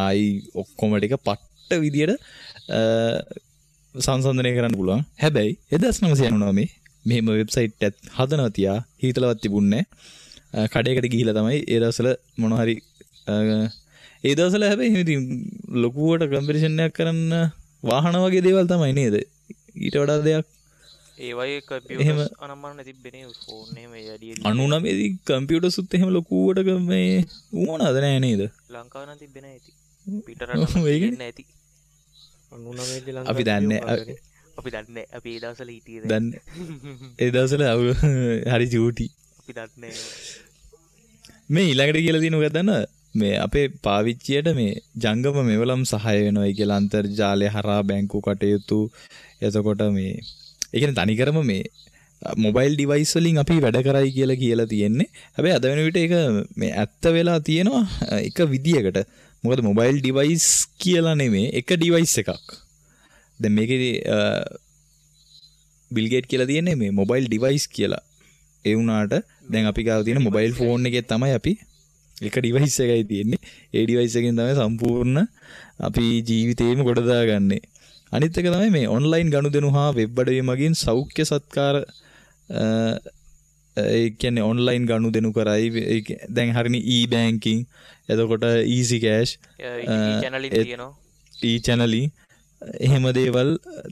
ආයි ඔක්කොම ටික පට්ට විදියට සංසන්දනය කරන්න පුළුවන්. හැබැයි 1999 මෙහෙම වෙබ්සයිට් එකක් හදනවා තියා හිතලවත් තිබුණේ නැහැ. කඩේකට ගිහිලා තමයි ඒ දවස්වල මොන හරි ඒ දවස්වල හැබැයි එහෙම ඉතින් ලොකුවට කම්පැරිසන් එකක් කරන්න වාහන වගේ දේවල් තමයි නේද? ඊට වඩා දෙයක් ඒ වගේ කම්පියුටර්ස් අනම්මන තිබ්බේ නේ ෆෝන් එහෙම ඒ වැඩි 99 දී කම්පියුටර්ස් උත් එහෙම ලොකුවට මේ වුණාද නෑ නේද? ලංකාවේ නම් තිබ්බේ නෑ ඉතින්. පිට රටවල තිබ්බේ නෑ ඉතින්. 99 දී ලංකාවේ අපි දන්නේ අපි දන්නේ අපි ඒ දවස්වල හිටියේ දන්නේ ඒ දවස්වල හරි චූටි. අපි දන්නේ මේ ඊළඟට කියලා තියෙන මොකක්ද දන්නවද? මේ අපේ පාවිච්චියට මේ ජංගම මෙවලම් සහාය වෙනවයි කියලා අන්තර්ජාලය හරහා බැංකු කටයුතු එතකොට මේ ඒ කියන්නේ තනිකරම මේ මොබයිල් ඩිවයිස් වලින් අපි වැඩ කරයි කියලා කියලා තියෙන්නේ. හැබැයි අද වෙන විට ඒක මේ ඇත්ත වෙලා තියෙනවා එක විදියකට. මොකද මොබයිල් ඩිවයිස් කියලා නෙමෙයි එක ඩිවයිස් එකක්. දැන් මේකේ බිල් ගේට් කියලා තියෙන්නේ මේ මොබයිල් ඩිවයිස් කියලා. ඒ වුණාට දැන් අපි ගාව තියෙන මොබයිල් ෆෝන් එකේ තමයි අපි එක ඩිවයිස් එකයි තියෙන්නේ. ඒ ඩිවයිස් එකෙන් තමයි සම්පූර්ණ අපි ජීවිතේම ගොඩ දාගන්නේ. අනිත් එක තමයි මේ ඔන්ලයින් ගනුදෙනු හා වෙබ් අඩවි මගින් සෞඛ්‍ය සත්කාර ඒ කියන්නේ ඔන්ලයින් ගනුදෙනු කරයි. දැන් හරිනේ e-banking එතකොට easy cash e-channeling තියෙනවා. e-channeling එහෙම දේවල්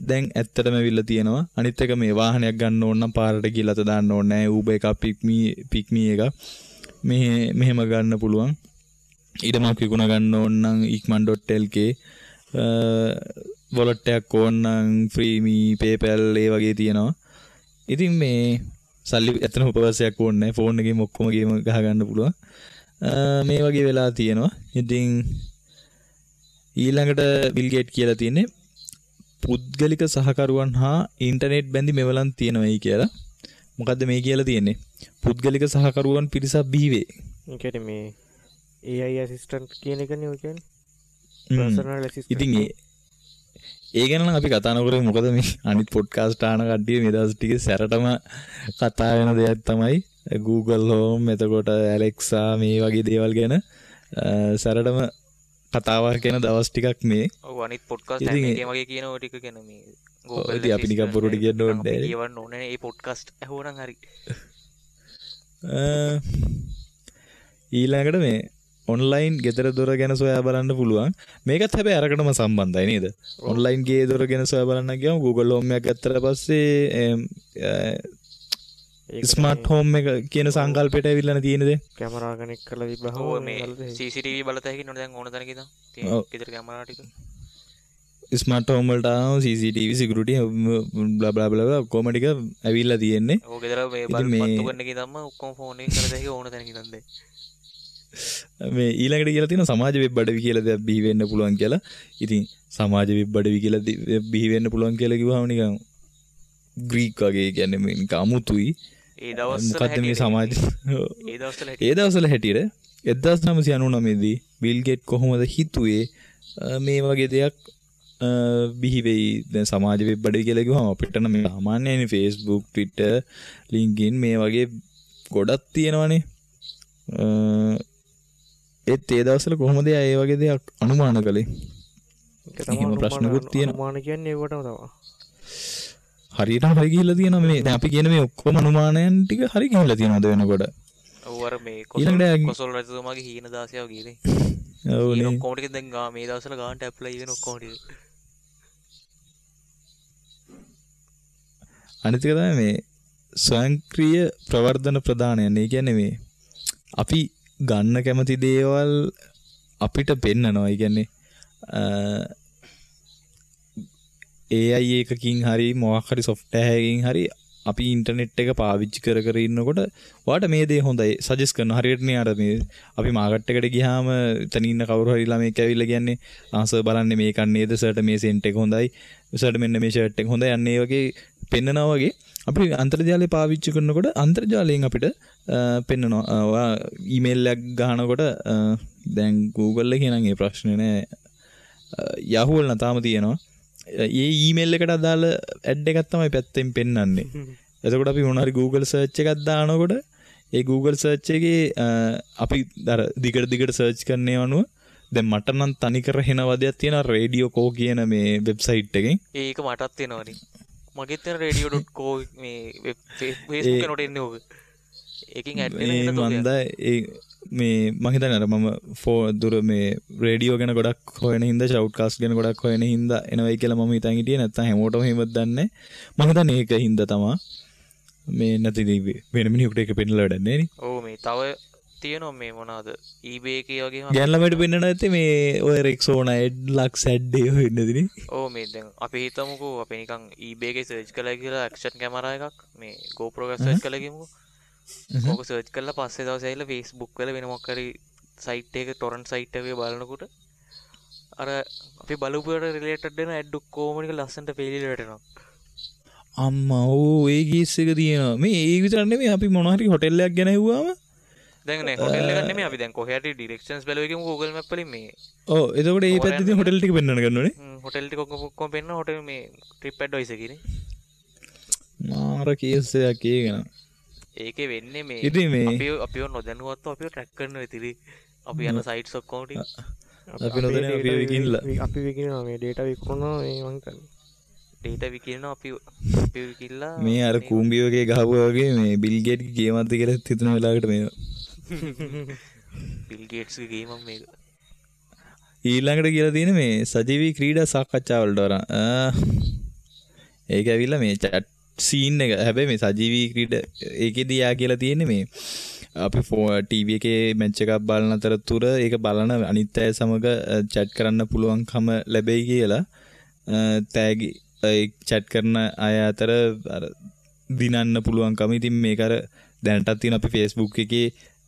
දැන් ඇත්තටම ඇවිල්ලා තියෙනවා. අනිත් එක මේ වාහනයක් ගන්න ඕන නම් පාරට ගිහලා අත දාන්න ඕනේ නෑ. Uber එකක් pick me එකක් මෙහෙම ගන්න පුළුවන්. ඊටමක් විකුණ ගන්න ඕන නම් ikman.lk wallet එකක් ඕන නම් FreeMe PayPal ඒ වගේ තියෙනවා. ඉතින් මේ සල්ලි ඇත්තටම උපවාසයක් ඕනේ නැහැ. ෆෝන් එකේම ඔක්කොම ගේම ගහ ගන්න පුළුවන්. මේ වගේ වෙලා තියෙනවා. ඉතින් ඊළඟට බිල් ගේට් කියලා තියෙන්නේ පුද්ගලික සහකරුවන් හා ඉන්ටර්නෙට් බැඳි මෙවලම් තියෙනවයි කියලා. මොකද්ද මේ කියලා තියෙන්නේ? පුද්ගලික සහකරුවන් පිරිසක් බිහි වේ. ඒ කියන්නේ මේ AI assistant කියන එකනේ ඔය කියන්නේ. Personal assistant. ඉතින් ඒ ගැන නම් අපි කතා නොකරමු. මොකද මේ අනිත් පොඩ්කාස්ට් අහන කට්ටිය මේ දවස් ටිකේ සැරටම කතා වෙන දෙයක් තමයි Google Home එතකොට Alexa මේ වගේ දේවල් ගැන සැරටම කතාවක් ගැන දවස් ටිකක් මේ. ඔව් අනිත් පොඩ්කාස්ට් හැම එකේම වගේ කියන ඔය ටික ගැන මේ Google ඉතින් අපි නිකන් බොරුට කියන්න ඕනේ නෑ. කියවන්න ඕනේ නෑ. ඒ පොඩ්කාස්ට් ඇහුවනම් හරි. ඊළඟට මේ ඔන්ලයින් ගෙදර දොර ගැන සොයා බලන්න පුළුවන්. මේකත් හැබැයි අරකටම සම්බන්ධයි නේද? ඔන්ලයින් ගේ දොර ගැන සොයා බලන්න ගියාම Google Home එකක් ගත්තට පස්සේ ස්මාර්ට් හෝම් එක කියන සංකල්පයට ඇවිල්ලානේ තියෙන්නේ දැන්. කැමරා කනෙක්ට් කරලා තිබ්බහම ඔව් මේ CCTV බලත හැකි නේද දැන් ඕන තැනක ඉඳන් තියෙන ගෙදර කැමරා ටික. ස්මාර්ට් හෝම් වලට ආවම CCTV security blah blah blah ඔක්කොම ටික ඇවිල්ලා තියෙන්නේ. ඔව් ගෙදර මේ බල්බ් පත්තු කරන එකේ ඉඳන්ම ඔක්කොම ෆෝන් එකෙන් කරත හැකි ඕන තැනක ඉඳන් දැන්. මේ ඊළඟට කියලා තියෙනවා සමාජ වෙබ් අඩවි කියලා දෙයක් බිහි වෙන්න පුළුවන් කියලා. ඉතින් සමාජ වෙබ් අඩවි කියලා බිහි වෙන්න පුළුවන් කියලා කිව්වහම නිකන් ග්‍රීක් වගේ, කියන්නේ මේ නිකන් අමුතුයි. ඒ දවස්වල මොකද්ද මේ සමාජ ඒ දවස්වල හැටියට 1999 දී බිල් ගේට් කොහොමද හිතුවේ මේ වගේ දෙයක් බිහි වෙයි? දැන් සමාජ වෙබ් අඩවි කියලා කිව්වහම අපිට නම් මේ සාමාන්‍යයෙන් Facebook, Twitter, LinkedIn මේ වගේ ගොඩක් තියෙනවනේ. ඒත් ඒ දවස්වල කොහොමද ඒ වගේ දෙයක් අනුමාන කළේ? ඒක තමයි එහෙම ප්‍රශ්නකුත් තියෙනවා. අනුමාන කියන්නේ ඒවටම තමයි. හරියටම හරි ගිහිල්ලා තියෙනවා මේ. දැන් අපි කියන මේ ඔක්කොම අනුමානයන් ටික හරි ගිහිල්ලා තියෙනවද වෙනකොට? ඔව් අර මේ කොසල් රජතුමාගේ හීන දාසයව ගියේ. ඔව් නේ. ඔක්කොම ටික දැන් මේ දවස්වල ගානට ඇප්ලයි වෙන ඔක්කොම ටික. අනිත් එක තමයි මේ ස්වයංක්‍රීය ප්‍රවර්ධන ප්‍රදානයන්. ඒ කියන්නේ මේ අපි ගන්න කැමති දේවල් අපිට පෙන්නනවා. ඒ කියන්නේ AI එකකින් හරි මොකක් හරි සොෆ්ට්වෙයාර් එකකින් හරි අපි ඉන්ටර්නෙට් එක පාවිච්චි කර කර ඉන්නකොට ඔයාට මේ දේ හොඳයි සජෙස්ට් කරනවා. හරියට නේ අර මේ අපි මාකට් එකට ගියාම එතන ඉන්න කවුරු හරි ළමෙක් ඇවිල්ලා කියන්නේ ආ සර් බලන්නේ මේකක් නේද, සර්ට මේ සෙන්ට් එක හොඳයි, සර්ට මෙන්න මේ ෂර්ට් එක හොඳයි, අන්න ඒ වගේ පෙන්නනවා වගේ අපි අන්තර්ජාලය පාවිච්චි කරනකොට අන්තර්ජාලයෙන් අපිට පෙන්නනවා. ඔයා ඊමේල් එකක් ගහනකොට දැන් Google එකේ නම් ඒ ප්‍රශ්නේ නෑ, Yahoo වල නම් තාම තියෙනවා. ඒ ඊමේල් එකට අදාළ ඇඩ් එකක් තමයි පැත්තෙන් පෙන්නන්නේ. එතකොට අපි මොන හරි Google search එකක් දානකොට ඒ Google search එකේ අපි අර දිගට දිගට සර්ච් කරන ඒවා අනුව දැන් මට නම් තනිකර හෙන වදයක් තියෙනවා රේඩියෝ කෝ කියන මේ වෙබ්සයිට් එකෙන්. ඒක මටත් එනවනේ. මගෙත් එන radio.co මේ වෙබ් Facebook එකට එන්නේ ඕක. ඒකෙන් ඇඩ් වෙන එක මන්ද ඒ මේ මං හිතන්නේ අර මම දුර මේ රේඩියෝ ගැන ගොඩක් හොයන හින්දා ෂවුට්කාස්ට් ගැන ගොඩක් හොයන හින්දා එනවයි කියලා මම හිතන් හිටියේ. නැත්තම් හැමෝටම එහෙමද දන්නේ. මං හිතන්නේ ඒක හින්දා තමා මේ නැති වෙන මිනිහෙකුට ඒක පෙන්නලා වැඩක් නෑ නේ. ඔව් මේ තව තියෙනවා මේ මොනවාද eBay එකේ වගේම ගෑන් ළමයිට පෙන්නන ඇත්තේ මේ ඔය රෙක්සෝනා ඇඩ් ලක්ස් ඇඩ් ඒ ඔය වෙන්නේ නේ. ඔව් මේ දැන් අපි හිතමුකෝ අපි නිකන් eBay එකේ සර්ච් කළා කියලා ඇක්ෂන් කැමරා එකක් මේ GoPro එකක් සර්ච් කළා කියමුකෝ. ඕක සර්ච් කරලා පස්සේ දවසේ ඇවිල්ලා Facebook වල වෙන මොකක් හරි සයිට් එකක ටොරන්ට් සයිට් එකේ බලනකොට අර අපි බලපු එකට රිලේටඩ් වෙන ඇඩ් ඔක්කොම ටික ලස්සනට පේලිලා වැටෙනවා. අම්මා ඔව් ඒ කේස් එක තියෙනවා. මේ ඒ විතරක් නෙමෙයි අපි මොන හරි හොටෙල් එකක් ගැන හෙව්වම දැන් නේ හොටෙල් එකක් නෙමෙයි අපි දැන් කොහේ හරි ඩිරෙක්ෂන්ස් බැලුවා කියමු Google Map වලින් මේ. ඔව් එතකොට ඒ පැත්තේ තියෙන හොටෙල් ටික පෙන්වන්න ගන්නෝනේ. හොටෙල් ටික ඔක්කොම පෙන්වන හොටෙල් මේ ට්‍රිප් ඇඩ්වයිසර් කියන්නේ. මාර කේස් එකක් ඒක නේද. ඒකේ වෙන්නේ මේ ඉතින් මේ අපිව නොදැනුවත්ව අපිව ට්‍රැක් කරනවා ඉතින් අපි යන සයිට්ස් ඔක්කොම ටික අපි නොදැන අපිව විකිනලා අපි විකිනවා මේ ඩේටා විකුණනවා මේ මං හිතන්නේ ඩේටා විකිනනවා අපි විකිනලා මේ අර කූඹි වගේ ගහපුවා වගේ මේ බිල් ගේට්ගේ ගේමක්ද කියලා හිතන වෙලාවකට මේ බිල් ගේට්ස්ගේ ගේමක් මේක. ඊළඟට කියලා තියෙන මේ සජීවී ක්‍රීඩා සාකච්ඡා වලට වරන් ඒක ඇවිල්ලා මේ චැට් සීන් එක. හැබැයි මේ සජීවී ක්‍රීඩා ඒකෙදී යා කියලා තියෙන්නේ මේ අපි ටීවී එකේ මැච් එකක් බලන අතරතුර ඒක බලන අනිත් අය සමග චැට් කරන්න පුළුවන්කම ලැබෙයි කියලා. තෑගි ඒ චැට් කරන අය අතර අර දිනන්න පුළුවන්කම. ඉතින් මේක අර දැනටත් තියෙන අපි Facebook එකේ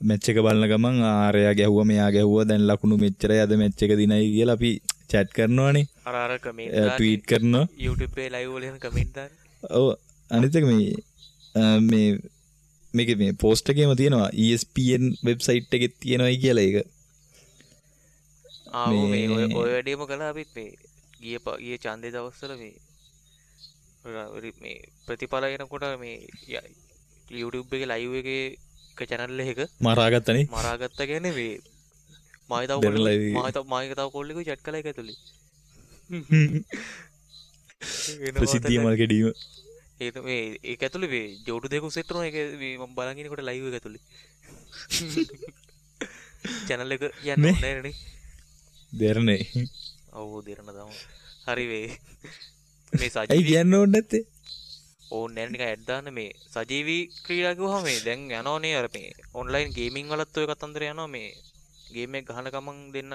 මැච් එක බලන ගමන් ආරයා ගැහුවා මෙයා ගැහුවා දැන් ලකුණු මෙච්චරයි අද මැච් එක දිනයි කියලා අපි චැට් කරනවානේ. අර අර කමෙන්ට් දාන්නේ ට්වීට් කරනවා YouTube එකේ ලයිව් වල එහෙම කමෙන්ට් දාන්නේ. ඔව් අනිත් එක මේ මේ මේකේ මේ පෝස්ට් එකේම තියෙනවා ESPN website එකේ තියෙනවයි කියලා ඒක. ආ ඔව් මේ ඔය වැඩේම කළා අපිත් මේ ගිය ඡන්දේ දවස්වල මේ මේ ප්‍රතිඵල එනකොට මේ YouTube එකේ ලයිව් එකේ එක චැනල් එකක මරාගත්තනේ. මරාගත්තා කියන්නේ මේ මායි තව කොල්ලෙකුයි මායි තව කොල්ලෙකුයි චැට් කළා ඒක ඇතුලේ. ප්‍රසිද්ධිය මල් කැඩීම. ඒක මේ ඒක ඇතුලේ මේ ජෝඩු දෙකක් සෙට් වුණා. ඒක මේ මම බලන් ඉනකොට ලයිව් එක ඇතුලේ. චැනල් එක කියන්න ඕනේ නෑනේ. දෙරණේ. ඔව් දෙරණ තමයි. හරි වේ. මේ සජීවී ඇයි කියන්න ඕනේ නැත්තේ? ඕනේ නෑ නිකන් ඇඩ් දාන්න. මේ සජීවී ක්‍රීඩා කිව්වහම මේ දැන් යනෝනේ අර මේ ඔන්ලයින් ගේමින් වලත් ඔය කතන්දර යනවා. මේ ගේම් එක ගහන ගමන් දෙන්න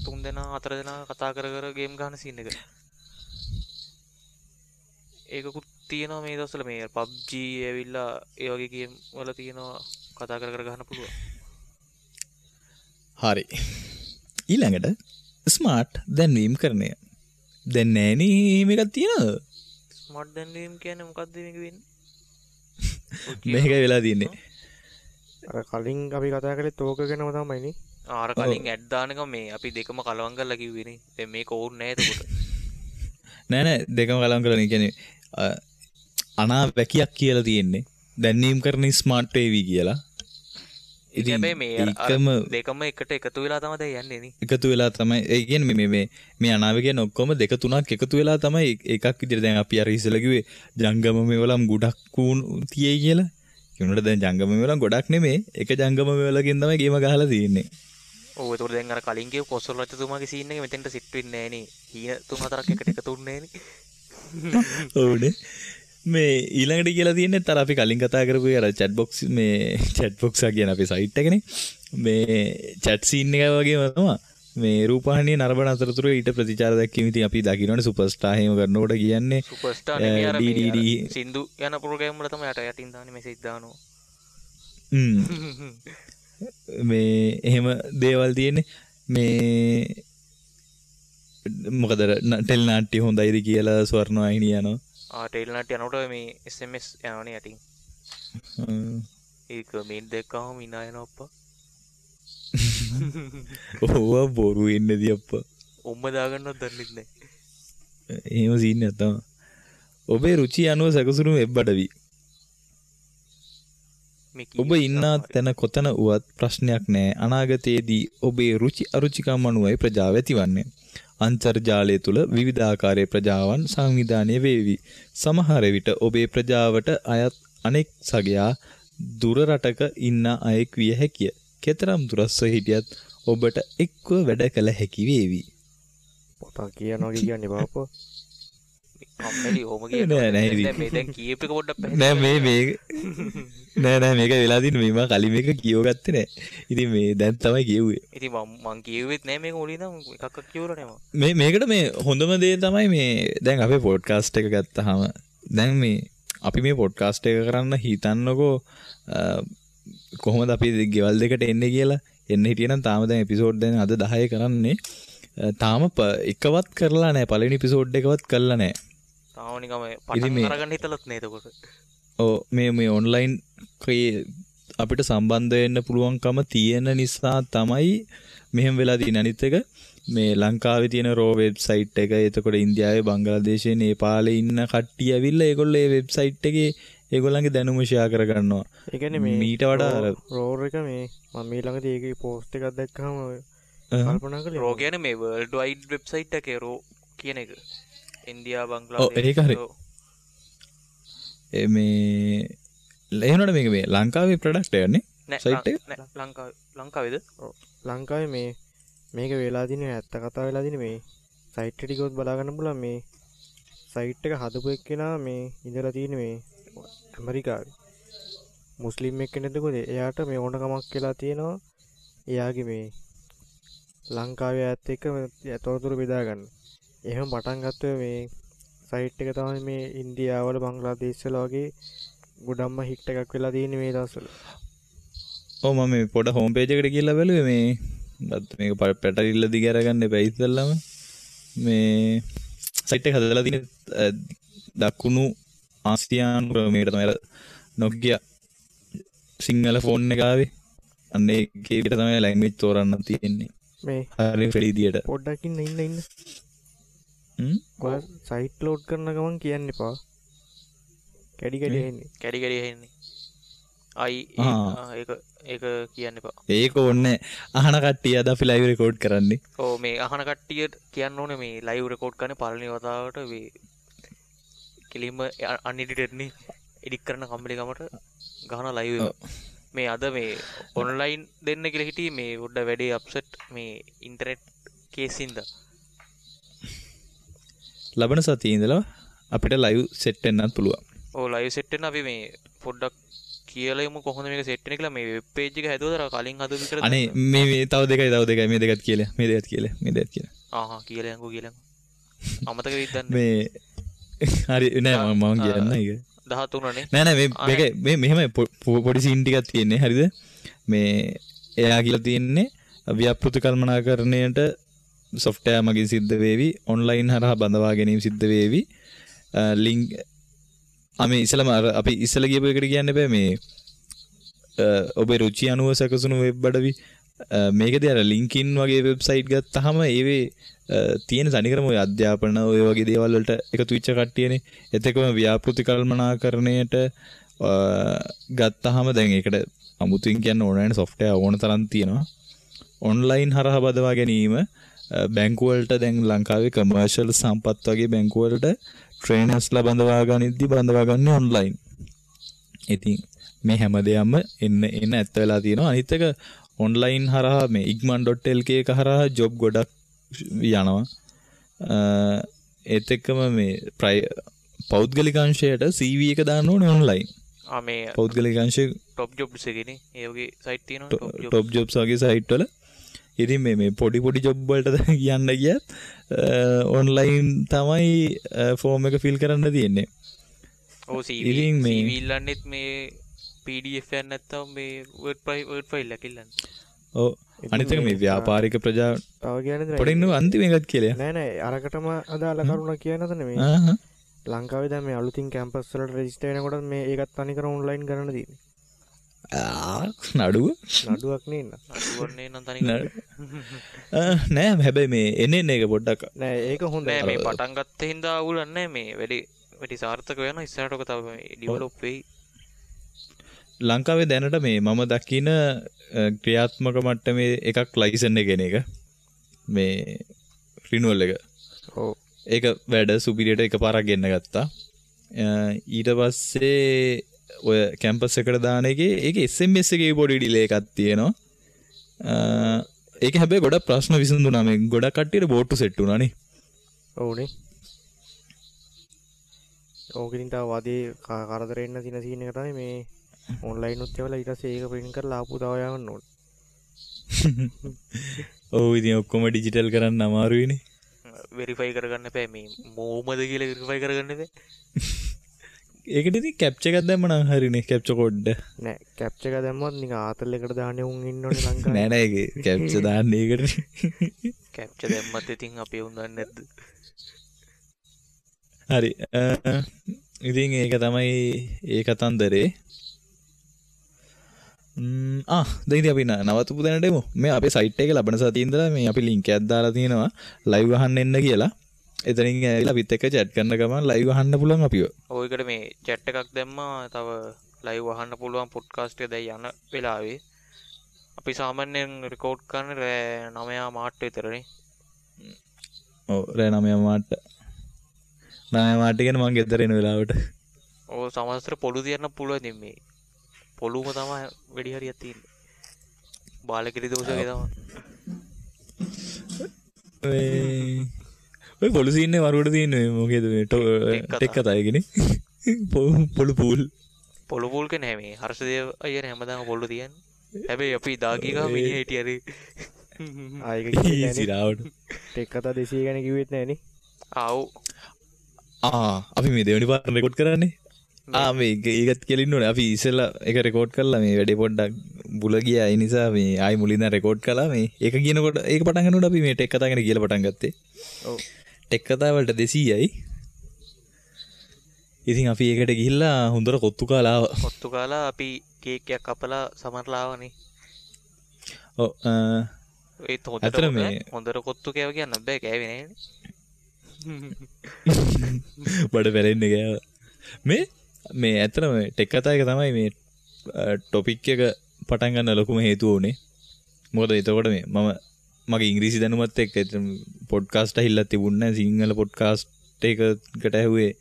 තුන් දෙනා හතර දෙනා කතා කර කර ගේම් ගහන සීන් එක. ඒකකුත් තියෙනවා මේ දවස්වල. මේ PUBG ඇවිල්ලා ඒ වගේ ගේම් වල තියෙනවා කතා කර කර ගහන්න පුළුවන්. හරි. ඊළඟට ස්මාර්ට් දැන්වීම් කරණය. දැන් නෑනේ එහෙම එකක් තියෙනවද? ස්මාර්ට් දැන්වීම් කියන්නේ මොකද්ද මේක වෙන්නේ? මේකයි වෙලා තියෙන්නේ. අර කලින් අපි කතා කළේ තෝක ගැනම තමයි නේ. අර කලින් ඇඩ් දාන එක මේ අපි දෙකම කලවම් කරලා කිව්වේ නේ. දැන් මේක ඕනේ නෑ එතකොට. නෑ නෑ දෙකම කලවම් කරලා නේ. කියන්නේ අනා වැකියක් කියලා තියෙන්නේ. දැන්වීම් කරන ස්මාර්ට් වේවි කියලා. ඉතින් මේ දෙකම එකට එකතු වෙලා තමයි දැන් යන්නේ නේ. එකතු වෙලා තමයි. ඒ කියන්නේ මේ මේ මේ අනාව කියන්නේ ඔක්කොම දෙක තුනක් එකතු වෙලා තමයි එකක් විදිහට. දැන් අපි අර ඉස්සෙල්ලා කිව්වේ ජංගම මේවලම් ගොඩක් තියෙයි කියලා. ඒ වුණාට දැන් ජංගම මේවලම් ගොඩක් නෙමෙයි. එක ජංගම මේවලකින් තමයි ගේම ගහලා තියෙන්නේ. ඔව් ඒතකොට දැන් අර කලින් කියපු කොසල් රජතුමාගේ සීන් එක මෙතෙන්ට සිට් වෙන්නේ නෑ නේ. හීන තුන හතරක් එකට එකතු වෙන්නේ නෑනේ. ඔව්නේ. මේ ඊළඟට කියලා තියෙන්නේ අර අපි කලින් කතා කරපු අර චැට් බොක්ස් මේ චැට් බොක්ස් එක කියන අපේ සයිට් එකනේ. මේ චැට් සීන් එක වගේම තමයි මේ රූපවාහිනිය නරඹන අතරතුර ඊට ප්‍රතිචාර දැක්වීම. ඉතින් අපි දකින්නවනේ සුපර්ස්ටාර් එහෙම කරනකොට කියන්නේ සුපර්ස්ටාර් නෙමෙයි අර මේ සින්දු යන ප්‍රෝග්‍රෑම් වල තමයි යට යටින් දාන්නේ මෙසේජ් දානවා. මේ එහෙම දේවල් තියෙන්නේ. මේ මොකද ටෙලි නාට්‍ය හොඳයිද කියලා ස්වර්ණවාහිනිය යනවා. ආ ටෙලි නාට්‍ය යනකොට මේ SMS යනවනේ යටින්. ඒක මේ දැක්කම hina යනවා අප්පා. ඔව් බොරු වෙන්නේදී අප්පා. උම්ම දාගන්නවත් දන්නෙත් නෑ. එහෙම සීන් එකක් තමයි. ඔබේ රුචි අනුව සැකසුණු වෙබ් අඩවි. ඔබ ඉන්නා තැන කොතන වුවත් ප්‍රශ්නයක් නෑ. අනාගතයේදී ඔබේ රුචි අරුචිකම් අනුවයි ප්‍රජාව ඇතිවන්නේ. අන්තර්ජාලය තුළ විවිධාකාරයේ ප්‍රජාවන් සංවිධානය වේවි. සමහර විට ඔබේ ප්‍රජාවට අයත් අනෙක් සගයා දුර රටක ඉන්න අයෙක් විය හැකිය. කෙතරම් දුරස්ව හිටියත් ඔබට එක්ව වැඩ කළ හැකි වේවි. පොතක් කියනවා කියන්නේ බාප්පා. කම්මැලි ඔහොම කියනවා. නෑ නෑ මේ දැන් කියප එක පොඩ්ඩක් පැහැදිලි නෑ මේ මේ නෑ නෑ මේක වෙලා තියෙන්නේ මේ මම කලින් මේක කියව ගත්තේ නෑ. ඉතින් මේ දැන් තමයි කියුවේ. ඉතින් මං කියුවෙත් නෑ මේක මුලින් ඉඳන් එකක්වත් කියවලා නෑ මං. මේ මේකට මේ හොඳම දේ තමයි මේ දැන් අපේ පොඩ්කාස්ට් එක ගත්තාම දැන් මේ අපි මේ පොඩ්කාස්ට් එක කරන්න හිතන්නකෝ කොහොමද අපි ගෙවල් දෙකට එන්නේ කියලා. එන්න හිටියනම් තාම දැන් එපිසෝඩ් දැන් අද 10 කරන්නේ. තාම එකවත් කරලා නෑ. පළවෙනි එපිසෝඩ් එකවත් කරලා නෑ. තාම නිකන් පටන් අරගන්න හිතලත් නෑ එතකොට. ඔව් මේ මේ ඔන්ලයින් අපිට සම්බන්ධ වෙන්න පුළුවන්කම තියෙන නිසා තමයි මෙහෙම වෙලා තියෙන්නේ. අනිත් එක මේ ලංකාවේ තියෙන රෝ වෙබ්සයිට් එක, එතකොට ඉන්දියාවේ, බංග්ලාදේශයේ, නේපාලේ ඉන්න කට්ටිය ඇවිල්ලා ඒගොල්ලෝ ඒ වෙබ්සයිට් එකේ ඒගොල්ලන්ගේ දැනුම ෂෙයා කරගන්නවා. ඒ කියන්නේ මේ මීට වඩා අර රෝර් එක මේ මම මේ ළඟදී ඒකේ පෝස්ට් එකක් දැක්කම කල්පනා කළේ රෝ කියන්නේ මේ වර්ල්ඩ් වයිඩ් වෙබ්සයිට් එකේ රෝ කියන එක. ඉන්දියා, බංග්ලාදේශ. ඔව් ඒක හරි. ඒ මේ එහෙනොට මේක මේ ලංකාවේ ප්‍රොඩක්ට් එකක් නේ? සයිට් එක? නෑ ලංකාවේ. ලංකාවේද? ඔව්. ලංකාවේ මේ මේක වෙලා තියෙන්නේ ඇත්ත කතාව වෙලා තියෙන්නේ මේ සයිට් එක ගියොත් බලා ගන්න පුළුවන් මේ සයිට් එක හදපු එක්කෙනා මේ ඉඳලා තියෙන්නේ මේ ඇමරිකාවේ. මුස්ලිම් එක්කෙනෙක්ද කොහෙද? එයාට මේ ඕන කමක් වෙලා තියෙනවා. එයාගේ මේ ලංකාවේ අයත් එක්ක තොරතුරු බෙදා ගන්න. එහෙම පටන් ගත්ත මේ සයිට් එක තමයි මේ ඉන්දියාවල බංග්ලාදේශවල වගේ ගොඩක්ම හිට් එකක් වෙලා තියෙන්නේ මේ දවස්වල. ඔව් මම මේ පොඩ හෝම් පේජ් එකට ගිහලා බැලුවේ මේ මේක පැටලිල්ල දිග අරගන්න එපා ඉස්සෙල්ලාම. මේ සයිට් එක හදලා තියෙන්නේ දකුණු ආසියානු ක්‍රමයට තමයි. අර Nokia Sinhala phone එක ආවේ. අන්න ඒකේ විතර තමයි ලැන්ග්වේජ් තෝරන්න තියෙන්නේ. මේ හරි ෆ්‍රී විදියට. පොඩ්ඩක් ඉන්න ඉන්න ඉන්න. ඔයා සයිට් ලෝඩ් කරන ගමන් කියන්න එපා. කැඩි කැඩි ඇහෙන්නේ. කැඩි කැඩි ඇහෙන්නේ. අයි ඒක ඒක කියන්න එපා. ඒක ඕනේ අහන කට්ටිය අද අපි ලයිව් රෙකෝඩ් කරන්නේ. ඔව් මේ අහන කට්ටියට කියන්න ඕනේ මේ ලයිව් රෙකෝඩ් කරන්නේ පළවෙනි වතාවට මේ කෙලින්ම අන්එඩිටඩ් නේ. එඩිට් කරන කම්මැලි කමට ගහන ලයිව් එක. මේ අද මේ ඔන්ලයින් දෙන්න කියලා හිටියේ මේ පොඩ්ඩ වැඩේ අප්සෙට් මේ ඉන්ටර්නෙට් කේස් හින්දා. ලබන සතියේ ඉඳලා අපිට ලයිව් සෙට් වෙන්නත් පුළුවන්. ඔව් ලයිව් සෙට් වෙන්න අපි මේ පොඩ්ඩක් කියලා යමු කොහොමද මේක සෙට් වෙන්නේ කියලා. මේ වෙබ් පේජ් එක හැදුවද අර කලින් හදපු විතරද? අනේ මේ මේ තව දෙකයි තව දෙකයි මේ දෙකත් කියලා මේ දෙකත් කියලා මේ දෙකත් කියලා. ආහා කියලා යන්කෝ කියලා යන්කෝ. අමතක වෙයිද දන්නේ. මේ හරි නෑ මම කියන්න ඒක 13 නේ. නෑ නෑ මේ මේක මේ මෙහෙමයි පොඩි සීන් ටිකක් තියෙන්නේ හරිද? මේ එයා කියලා තියෙන්නේ ව්‍යාපෘති කළමනාකරණයට සොෆ්ට්වෙයාර් මගින් සිද්ධ වේවි, ඔන්ලයින් හරහා බඳවා ගැනීම සිද්ධ වේවි. ලින්ක් මේ ඉස්සලම අර අපි ඉස්සල කියපු එකට කියන්න බෑ මේ ඔබේ රුචි අනුව සැකසුණු වෙබ් අඩවි. මේකදී අර ලින්ක්ඩින් වගේ වෙබ්සයිට් ගත්තාම ඒවේ තියෙන තනිකරම ඔය අධ්‍යාපන ඔය වගේ දේවල් වලට එකතු වෙච්ච කට්ටියනේ. ඒත් එක්කම ව්‍යාපෘති කළමනාකරණයට ගත්තාම දැන් ඒකට අමුතුවෙන් කියන්න ඕන නැහැ සොෆ්ට්වෙයාර් ඕන තරම් තියෙනවා. ඔන්ලයින් හරහා බදවා ගැනීම බැංකු වලට දැන් ලංකාවේ කමර්ෂල් සම්පත් වගේ බැංකු වලට ට්‍රේනර්ස්ලා බඳවා ගනිද්දි බඳවා ගන්නේ ඔන්ලයින්. ඉතින් මේ හැම දෙයක්ම එන්න එන්න ඇත්ත වෙලා තියෙනවා. අනිත් එක ඔන්ලයින් හරහා මේ igman.lk එක හරහා ජොබ් ගොඩක් යනවා. ඒත් එක්කම මේ පෞද්ගලික අංශයට CV එක දාන්න ඕනේ ඔන්ලයින්. ආ මේ පෞද්ගලික අංශය ටොප් ජොබ්ස් එකේනේ. ඒ වගේ සයිට් තියෙනවා ටොප් ජොබ්ස්. ටොප් ජොබ්ස් වගේ සයිට් වල. ඉතින් මේ මේ පොඩි පොඩි ජොබ් වලට කියන්න ගියත් ඔන්ලයින් තමයි ෆෝම් එක ෆිල් කරන්න තියෙන්නේ. ඔව් CV ඉතින් මේ CV ඉල්ලන්නෙත් මේ PDF එකක් නැත්තම් මේ Word file එකක් ඉල්ලන්නේ. ඔව් අනිත් එක මේ ව්‍යාපාරික ප්‍රජා තව කියන්නේ පොඩි ඉන්න අන්තිම එකත් කියලා. නෑ නෑ අරකටම අදාළ කරුණක් කියන්න හදනේ මේ. ලංකාවේ දැන් මේ අලුතින් කැම්පස් වලට රෙජිස්ටර් වෙනකොට මේ ඒකත් තනිකර ඔන්ලයින් කරන්න තියෙන්නේ. නඩුව නඩුවක් නේ නේද? නඩුවක් නේ නම් තනිකර. නෑ හැබැයි මේ එන්නේ එන්නේ එක පොඩ්ඩක් නෑ ඒක හොඳයි. නෑ මේ පටන් ගත්ත හින්දා අවුලක් නෑ මේ වැඩි වැඩි සාර්ථක වෙනවා ඉස්සරහට ඔක තව මේ ඩෙවලොප් වෙයි. ලංකාවේ දැනට මේ මම දකින ක්‍රියාත්මක මට්ටමේ එකක් ලයිසන් එක එන එක මේ රිනුවල් එක. ඔව් ඒක වැඩ සුපිරියට එකපාරක් ගෙන්න ගත්තා. ඊට පස්සේ ඔය කැම්පස් එකට දාන එකේ ඒකේ SMS එකේ පොඩි ඩිලේ එකක් තියෙනවා. ඒක හැබැයි ගොඩක් ප්‍රශ්න විසඳුණා. මේ ගොඩක් කට්ටියට බෝට්ටු සෙට් වුණා නේ. ඔව්නේ. ඕක ඉතින් තව වදේ කරදර එන්න තියෙන සීන් එක තමයි මේ ඔන්ලයින් උත් එවලා ඊට පස්සේ ඒක ප්‍රින්ට් කරලා ආපහු තව යවන්න ඕනේ. ඔව් ඉතින් ඔක්කොම ඩිජිටල් කරන්න අමාරුයිනේ. වෙරිෆයි කරගන්න එපා මේ මොමද කියලා වෙරිෆයි කරගන්න එපා. ඒකට ඉතින් කැප්චර් එකක් දැම්ම නම් හරිනේ කැප්චර් කෝඩ් එක. නෑ කැප්චර් එක දැම්මොත් නිකන් ආතල් එකට දාන්නේ උන් ඉන්න ඕනේ ලංකාවේ. නෑ නෑ ඒක කැප්චර් දාන්නේ ඒකට. කැප්චර් දැම්මත් ඉතින් අපි උන් දන්නේ නැද්ද? හරි. ඉතින් ඒක තමයි ඒ කතන්දරේ. දැන් ඉතින් අපි නවතපු දැනට එමු. මේ අපේ සයිට් එකේ ලබන සතියේ ඉඳලා මේ අපි ලින්ක් එකක් දාලා තියෙනවා ලයිව් අහන්න එන්න කියලා. එතනින් ඇවිල්ලා අපිත් එක්ක චැට් කරන ගමන් ලයිව් අහන්න පුළුවන් අපිව. ඔව් ඒකට මේ චැට් එකක් දැම්මා. තව ලයිව් අහන්න පුළුවන් පොඩ්කාස්ට් එක දැන් යන වෙලාවේ. අපි සාමාන්‍යයෙන් රෙකෝඩ් කරන්නේ රෑ 9:00 විතරනේ. ඔව් රෑ 9:00. 9:00 කියන්නේ මං ගෙදර එන වෙලාවට. ඔව් සමහර පොළු තියන්න පුළුවන් ඉතින් මේ පොළුම තමයි වැඩි හරියක් තියෙන්නේ. බාලකිරි දෝෂ වගේ තමයි. මේ ඔය පොළු සීන් එක වරුවට තියෙන්නේ මේ මොකේද මේ ටෙක් කතා එකනේ. පොළු පූල්. පොළු පූල් කියන්නේ මේ හර්ෂදේව අයියනේ හැමදාම පොළු තියන්නේ. හැබැයි අපි දා ගිය ගමන් මිනිහා හිටියා රේ. ආ ඒක කිව්වේ නෑනේ. සිරාවට. ටෙක් කතා 200 ගැන කිව්වෙත් නෑනේ. ආ ඔව්. ආ අපි මේ දෙවෙනි පාර රෙකෝඩ් කරන්නේ. ආ මේ ඒකත් කියලා ඉන්න ඕනේ. අපි ඉස්සෙල්ලා ඒක රෙකෝඩ් කරලා මේ වැඩේ පොඩ්ඩක් බුල ගියා. ඒ නිසා මේ ආයි මුලින් ඉඳන් රෙකෝඩ් කළා. මේ ඒක කියනකොට ඒක පටන් ගන්නකොට අපි මේ ටෙක් කතා ගැන කියලා පටන් ගත්තේ. ඔව්. ටෙක් කතා වලට 200යි. ඉතින් අපි ඒකට ගිහිල්ලා හොඳට කොත්තු කාලා ආවා. කොත්තු කාලා අපි කේක් එකක් කපලා සමරලා ආවනේ. ඔව් ඒත් ඇත්තටම මේ හොඳට කොත්තු කෑව කියන්න බෑ, කෑවේ නෑනේ. බඩ පැලෙන්නේ කෑවා. මේ මේ ඇත්තටම ටෙක් කතා එක තමයි මේ ටොපික් එක පටන් ගන්න ලොකුම හේතුව උනේ. මොකද එතකොට මේ මම මගේ ඉංග්‍රීසි දැනුමත් එක්ක පොඩ්කාස්ට් ඇහිල්ලක් තිබුණේ නැහැ. සිංහල පොඩ්කාස්ට් එකකට ඇහුවේ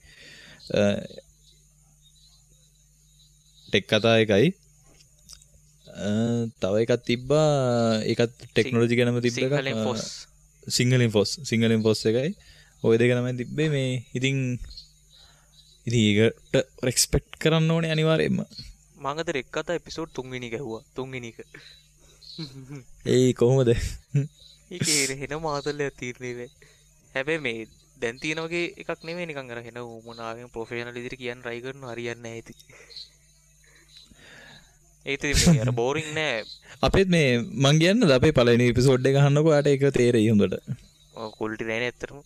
ටෙක් කතා එකයි. තව එකක් තිබ්බා, ඒකත් ටෙක්නොලොජි ගැනම තිබ්බ එකක්. සිංහලෙන් ෆොස්, සිංහලෙන් ෆොස් එකයි. ඔය දෙක තමයි තිබ්බේ මේ. ඉතින් ඉතින් ඒකට රෙස්පෙක්ට් කරන්න ඕනේ අනිවාර්යයෙන්ම. මං අද රෙක් කතා එපිසෝඩ් 3 වෙනි එක ඇහුවා. 3 වෙනි එක. ඒ කොහොමද? ඒකේ හෙන මාතලයක් තීරණේ වෙයි. හැබැයි මේ දැන් තියෙන වගේ එකක් නෙමෙයි, නිකන් අර හෙන උමනාවෙන් ප්‍රොෆෙෂනල් විදිහට කියන්න try කරනවා, හරියන්නේ නැහැ ඉතින්. ඒත් ඉතින් මේ අර බෝරින් නෑ. අපේත් මේ මං කියන්නද අපේ පළවෙනි එපිසෝඩ් එක අහන්නකෝ, ඔයාට ඒක තේරෙයි හොඳට. ඔව් ක්වොලිටි නෑනේ ඇත්තටම.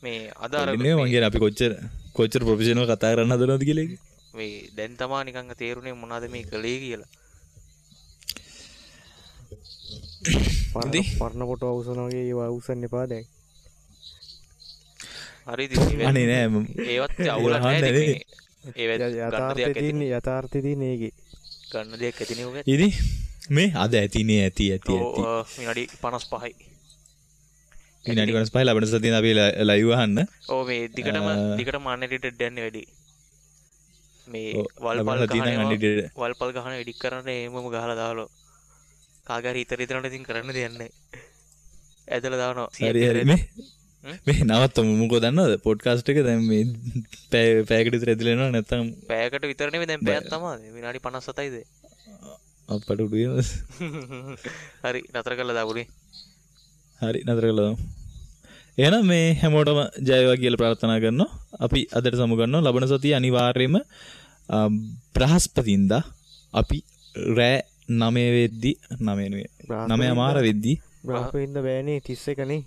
මේ අද අර නෙමෙයි මං කියන්නේ අපි කොච්චර කොච්චර ප්‍රොෆෙෂනල් කතා කරන්න හදනවද කියලා ඒක. මේ දැන් තමා නිකන් තේරුනේ මොනවද මේ කළේ කියලා. පරණ ෆොටෝ අවුසන වගේ ඒවා අවුස්සන්න එපා දැන්. හරි ඉතින් අනේ නෑ ඒවත් අවුලක් නෑ ඉතින් මේ ඒවත් ගන්න දෙයක් ඇතිනේ. යථාර්ථය තියෙන්නේ ඒකේ. ගන්න දෙයක් ඇතිනේ ඔය. ඉතින් මේ අද ඇතිනේ ඇති ඇති ඇති. ඔව් විනාඩි 55යි. විනාඩි 55 ලබන සතියේ අපි ලයිව් අහන්න. ඔව් මේ දිගටම දිගටම අන්එඩිටඩ් යන්නේ වැඩි. මේ වල්පල් ගහන වල්පල් ගහන එඩිට් කරන්න එහෙමම ගහලා දාලා කාගේ හරි හිත රිදෙනවට ඉතින් කරන්න දෙයක් නැහැ. ඇදලා දානවා. හරි හරි මේ මේ නවත්තමු. මොකෝ දන්නවද පොඩ්කාස්ට් එක දැන් මේ පැයකට විතර ඇදලා එනවා. නැත්තම් පැයකට විතර නෙමෙයි දැන් පැයක් තමයි. විනාඩි 57යිද? අප්පට උඩු වෙනවා. හරි නතර කරලා දාමුනේ. හරි නතර කරලා දාමු. එහෙනම් මේ හැමෝටම ජය වේවා කියලා ප්‍රාර්ථනා කරනවා. අපි අදට සමු ගන්නවා. ලබන සතියේ අනිවාර්යයෙන්ම බ්‍රහස්පතින්දා අපි රෑ 9 වෙද්දි 9 නෙවෙයි 9:00 වෙද්දි බ්‍රහස්පතින්දා බෑනේ 31 නේ.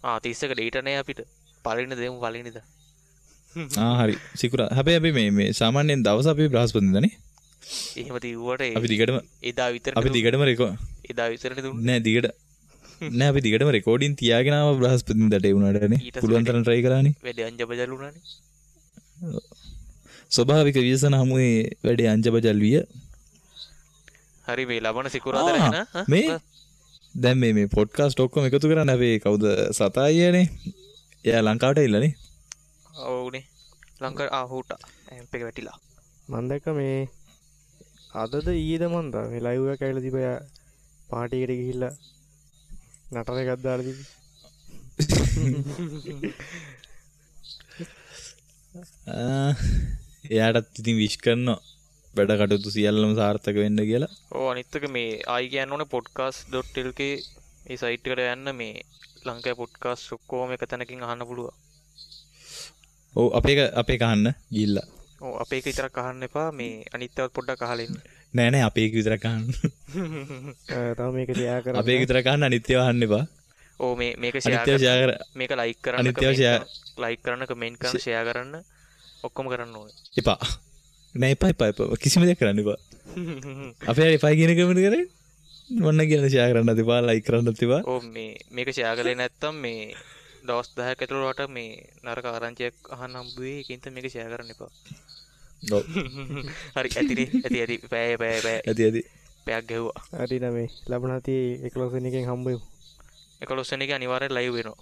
ආ 31 ඩේට් නෑ අපිට. පළවෙනි දෙමු පළවෙනිදා. ආ හරි සිකුරා. හැබැයි අපි මේ මේ සාමාන්‍යයෙන් දවස අපි බ්‍රහස්පතින්දා නේ. එහෙම තියුවට අපි දිගටම එදා විතරනේ අපි දිගටම රෙකෝඩ් එදා විතරනේ දුන්නේ. නෑ දිගට නෑ අපි දිගටම රෙකෝඩින් තියාගෙන ආව බ්‍රහස්පතින්දාට ඒ වුණාට නේ. පුළුවන් තරම් try කරානේ. වැඩේ අංජබජල් වුණානේ. ස්වභාවික ව්‍යසන හමුවේ වැඩේ අංජබජල් විය. හරි මේ ලබන සිකුරාදා රැ න මේ දැන් මේ මේ පොඩ්කාස්ට් ඔක්කොම එකතු කරන්න අපේ කවුද සතා අයියානේ. එයා ලංකාවට ඇවිල්ලා නේ. ඔව්නේ ලංකාවට ආ හුටා ඇම්ප් එක වැටිලා. මං දැක්ක මේ අදද ඊයේද මං දා මේ ලයිව් එකක් ඇවිල්ලා තිබ්බා. එයා පාටි එකට ගිහිල්ලා නටන එකක් දාලා තිබ්බේ. එයාටත් ඉතින් විශ් කරනවා වැඩ කටයුතු සියල්ලම සාර්ථක වෙන්න කියලා. ඔව් අනිත් එක මේ ආයි කියන්න ඕනේ podcast.lk ඒ සයිට් එකට යන්න මේ ලංකාවේ පොඩ්කාස්ට් ඔක්කොම එක තැනකින් අහන්න පුළුවන්. ඔව් අපේ එක අහන්න ගිහිල්ලා. ඔව් අපේ එක විතරක් අහන්න එපා, මේ අනිත් ඒවාත් පොඩ්ඩක් අහලා ඉන්න. නෑ නෑ අපේ එක විතරක් අහන්න. තව මේක ෂෙයා කරන්න. අපේ එක විතරක් අහන්න අනිත් ඒවා අහන්න එපා. ඔව් මේ මේක ෂෙයා කර මේක ලයික් කරන්න, අනිත් ඒවා ෂෙයා ලයික් කරන්න, කමෙන්ට් කරන්න, ෂෙයා කරන්න ඔක්කොම කරන්න ඕනේ. එපා. නෑ එපා එපා එපා කිසිම දෙයක් කරන්න එපා. අපේ හරි එපා කියන කමෙන්ට් කරේ මොන්න කියන ෂෙයා කරන්නත් එපා, ලයික් කරන්නත් එපා. ඔව් මේ මේක ෂෙයා කළේ නැත්තම් මේ දවස් 10ක් ඇතුළත ඔයාලට මේ නරක ආරංචියක් අහන්න හම්බ වෙයි. ඒකින් තමයි මේක ෂෙයා කරන්න එපා. ඔව්. හරි ඇතිනේ ඇති ඇති පැය පැය පැය ඇති ඇති පැයක් ගැහුවා. හරි නම මේ ලබන සතියේ 11 වෙනි එකෙන් හම්බ වෙමු. 11 වෙනි එක අනිවාර්යෙන් ලයිව් වෙනවා.